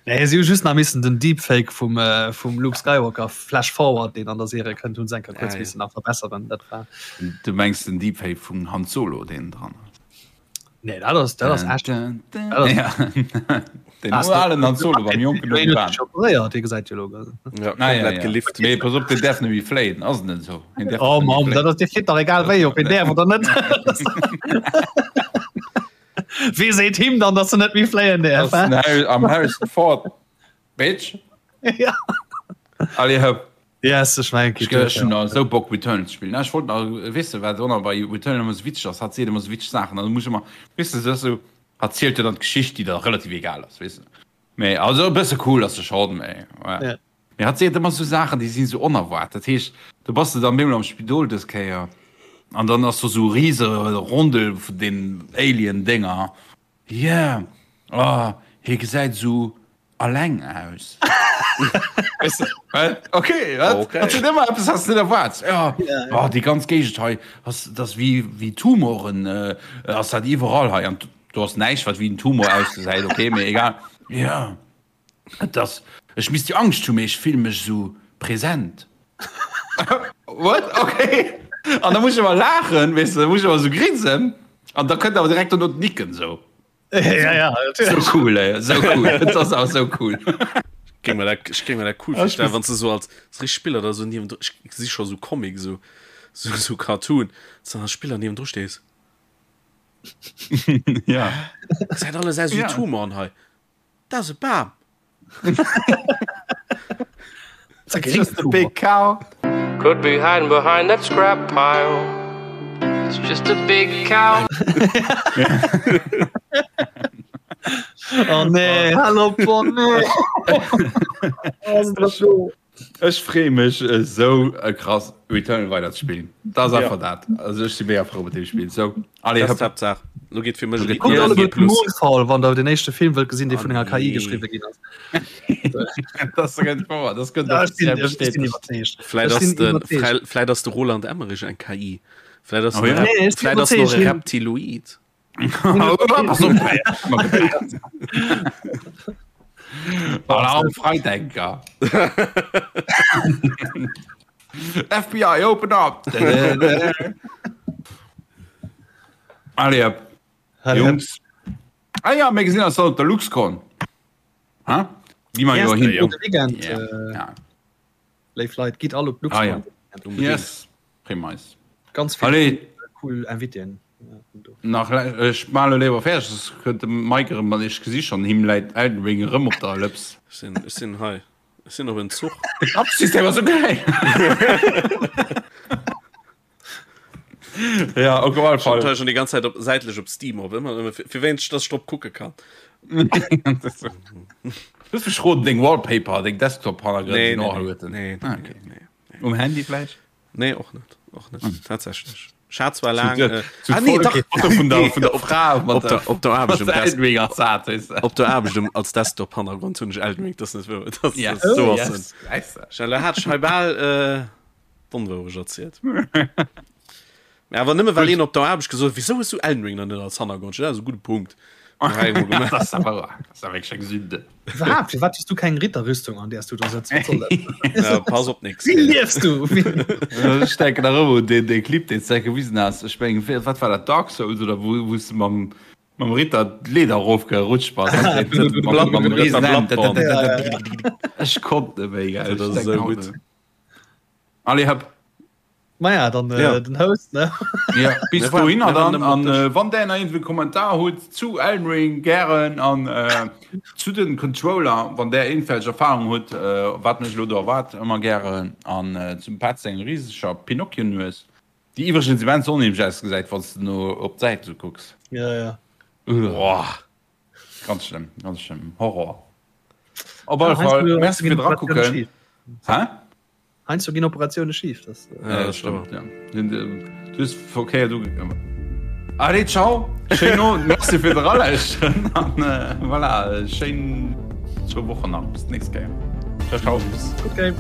Nee, si hu just nach missen den Deepfake vum, äh, vum Luke Skywalker Flash Forward, deen an der Serie kënnt, hunn se eng Kéier kuerz Ah, ja. missen nach verbesseren. Dat war. Du mengs den Deepfake vum Han Solo, deen dran ass? Nee, dat ass, dat ass echt. Ja. Den alen Han Solo beim jonken Obi-Wan. Operéiert, dee gesäit jo elo. Ja, Ah, ja, komplett ja. gelift. Mee pass op, deen däerf net méi fléien, ass et net esou? Hien däerf Oh net méi Mann, fléien. dat ass, dee flitt dach egal wéi, ob hien däerf oder net. Wee seet him dann, dass en net méi fléien däerf, Ass hä? den Harry, am Harrison Ford, Bitch. Ja. Allez hëpp. Yes, ech mengen, Ech ech hunn nach esou Bock Returnal ze spillen. Ech wollt nach weess de wat och nach bei Returnal ëmmer esou witzeg ass, hat seet ëmmer esou witzeg Saachen an da muss ech ëmmer, weess de, se ass esou, hat zielt jo dann d'Geschicht déi da relativ egal ass, weess de. Mee also e bësse cool ass se schonn, mee ja. Ja. Mee hat seet ëmmer esou Saachen déi sinn esou onerwaart. Dat heescht, do bass de dann bemol am Spidol dës Kéier an dann ass do esou e rise Rondel vun den Alien Dénger Yeah, oh, hie gesäit esou alleng aus. Weißt du, wat? Okay, wat? Okay. Dat sinn ëmmer eppes, was du net erwaarts. Ja, oh, déi ganz Géigend hei, ass, dat ass wéi, wéi Tumoren, äh, ass dat iwwerall hei. An do ass näischt, wat wéi en Tumor ausgesäit, okay, mee egal. Ja. Et ass, ech misst jo Angscht hunn, mee ech fille mech esou present. What? Okay. An da muss ech ëmmer laachen, weess de, da muss ech ëmmer esou grinsen an da kënnt awer direkt dono d'Nicken esou. Ja, ja, Sou cool, ey, sou cool. Et ass awer sou cool. Géing mer dat, ech géing mer dat cool virstellen, wann s de sou als richteg Spiller da sou niewendru, ech gesi scho sou Comic, sou, sou, sou Cartoon, s de dann als Spiller niewendru stees. Ja. Gesäit alles aus wéi Ja. Tumoren hei. Dat ass e Bam. Just a big cow. Could be hiding behind that scrap pile. It's just a big cow. Oh nee, hallo oh nee. Ech freeë mech esou krass Returnal weider ze spillen. Dat ass einfach dat. Also ech si mega frou mat deem Spill. Sou, allez Dat ass hëpp. d'Haaptsaach. Lo geet fir mech Lo geet Kuckt G alleguer plus. Moonfall, wann der den éischte Film wëllt gesinn, dee Ah vun enger KI nee. geschriwwe ginn ass. Dat ass ganz wouer. Dat gëtt Ja, ech sinn, offiziell ech sinn bestätegt. iwwerzeegt. Vläit Ech ass sinn de, iwwerzeegt. vläit, vläit ass de Roland Emmerich eng KI. Vläit ass Oh en ja. Rep, Nee, ech sinn vläit ass en och iwwerzeegt. e Hien, Reptiloid. Pass op, Alarm Freidenker. FBI, open up! Allez, hop. Jungs. Ah ja, mir gesinn eis dann op der LuxCon. Ha? Gi mer jo hin. Gudde Weekend, Ja. äh, Ja. léif Leit, gitt all op Ah ja. d'LuxCon. Yes. Prima. Ganz vill Allez. cool Invitéen. Nach ech man elo léiwer fäerdeg, soss kënnt de Mike erëm an ech gesi schonn, him läit Elden Ring erëm op der Lëps. Ech sinn, ech sinn hei, ech sinn op en Zuch. De Kappsystem ass esou geil! Ja, op alle Fall. Fall. Schon die ganze Zeit op, säitlech op Steam op, ëmmer, ëmmer, fir, fir wéinst, dass ech drop kucke kann. Du hues mech roden, deng Wallpaper, deng Desktop-Hannergrënn Nee, sinn nee, och nee, alleguerten. nee, Ah, nee, okay. nee, nee. Um Handy vläicht? Nee, och net, och net, tatsächlech. Ech hat zwar laang, Zu, äh, zu ah, nee, dach, Foto vun der, vun der op, Fra mat op der, op der Aarbecht um Desk, Desk op der Aarbecht um, als Desktop-Hannergrond hunn ech Elden Ring, das net wouer, das, Ja. das, so Oh, ass yes. en. Weißt du. Schnell, hat ech hei bal, äh, d'Onwourecht erzielt. Mä awer nëmme well een op der Aarbecht gesot huet, wieso hues du Elden Ring dann net als Hannergrond? Ja, dat ass e gudde Punkt. Dat ass awer dat ass awer wierklech eng Sünde. Iwwerhaapt, firwat hues du keng Ritterrüstung an där s du do sëtz? Wat soll dat? Ja, pass op nix. Wéi liefs du? Ech denken nach ëmmer un deen dee Clip deen s de gewisen has. Ech mengen, wéi wat war dat Dark Souls oder wou wou s de mam mam Ritter d'Leeder erofgerutscht bass? Blatt Mam Riesen Riesen Ja, ja, ja. Ech konnt net méi, gell. Dat Ech ass denken esou haut gutt. nach. Allez, hëpp. Maja, dann äh, Ja. den Host, ne? Ja, bis Mir waren- dohinner mir waren dann. nëmmen op An Dësch. äh, wann der nach irgendwie Kommentar hutt zu Elden Ring gären an äh, zu den Controller, wann der irgendwelch Erfahrung hutt, äh, wat mech lo do erwaart, ëmmer gären. An äh, zum Petz seng riseger Pinocchio-Nues, déi iwwregens immens onheemlech ausgesäit, wann s de no op d'Säit sou kucks. Ja, ja. Uah. Ganz schlëmm, ganz schlëmm. Horror. Op alle Ja, heiansdo- Fall, heiansdo merci ginn fir Operatioune drakucken. schif. Hä? Heiansdo ginn Operatioune schif. Das, äh, ja, das stimmt, ja. Du hues verkéiert ugekommen. Allez, ciao. Schéin Owend. Merci fir d'Eralauschteren. An äh, voilà, schéin zwou Wochen nach. Bis d'nächst Kéier. Ciao, ciao. Okay.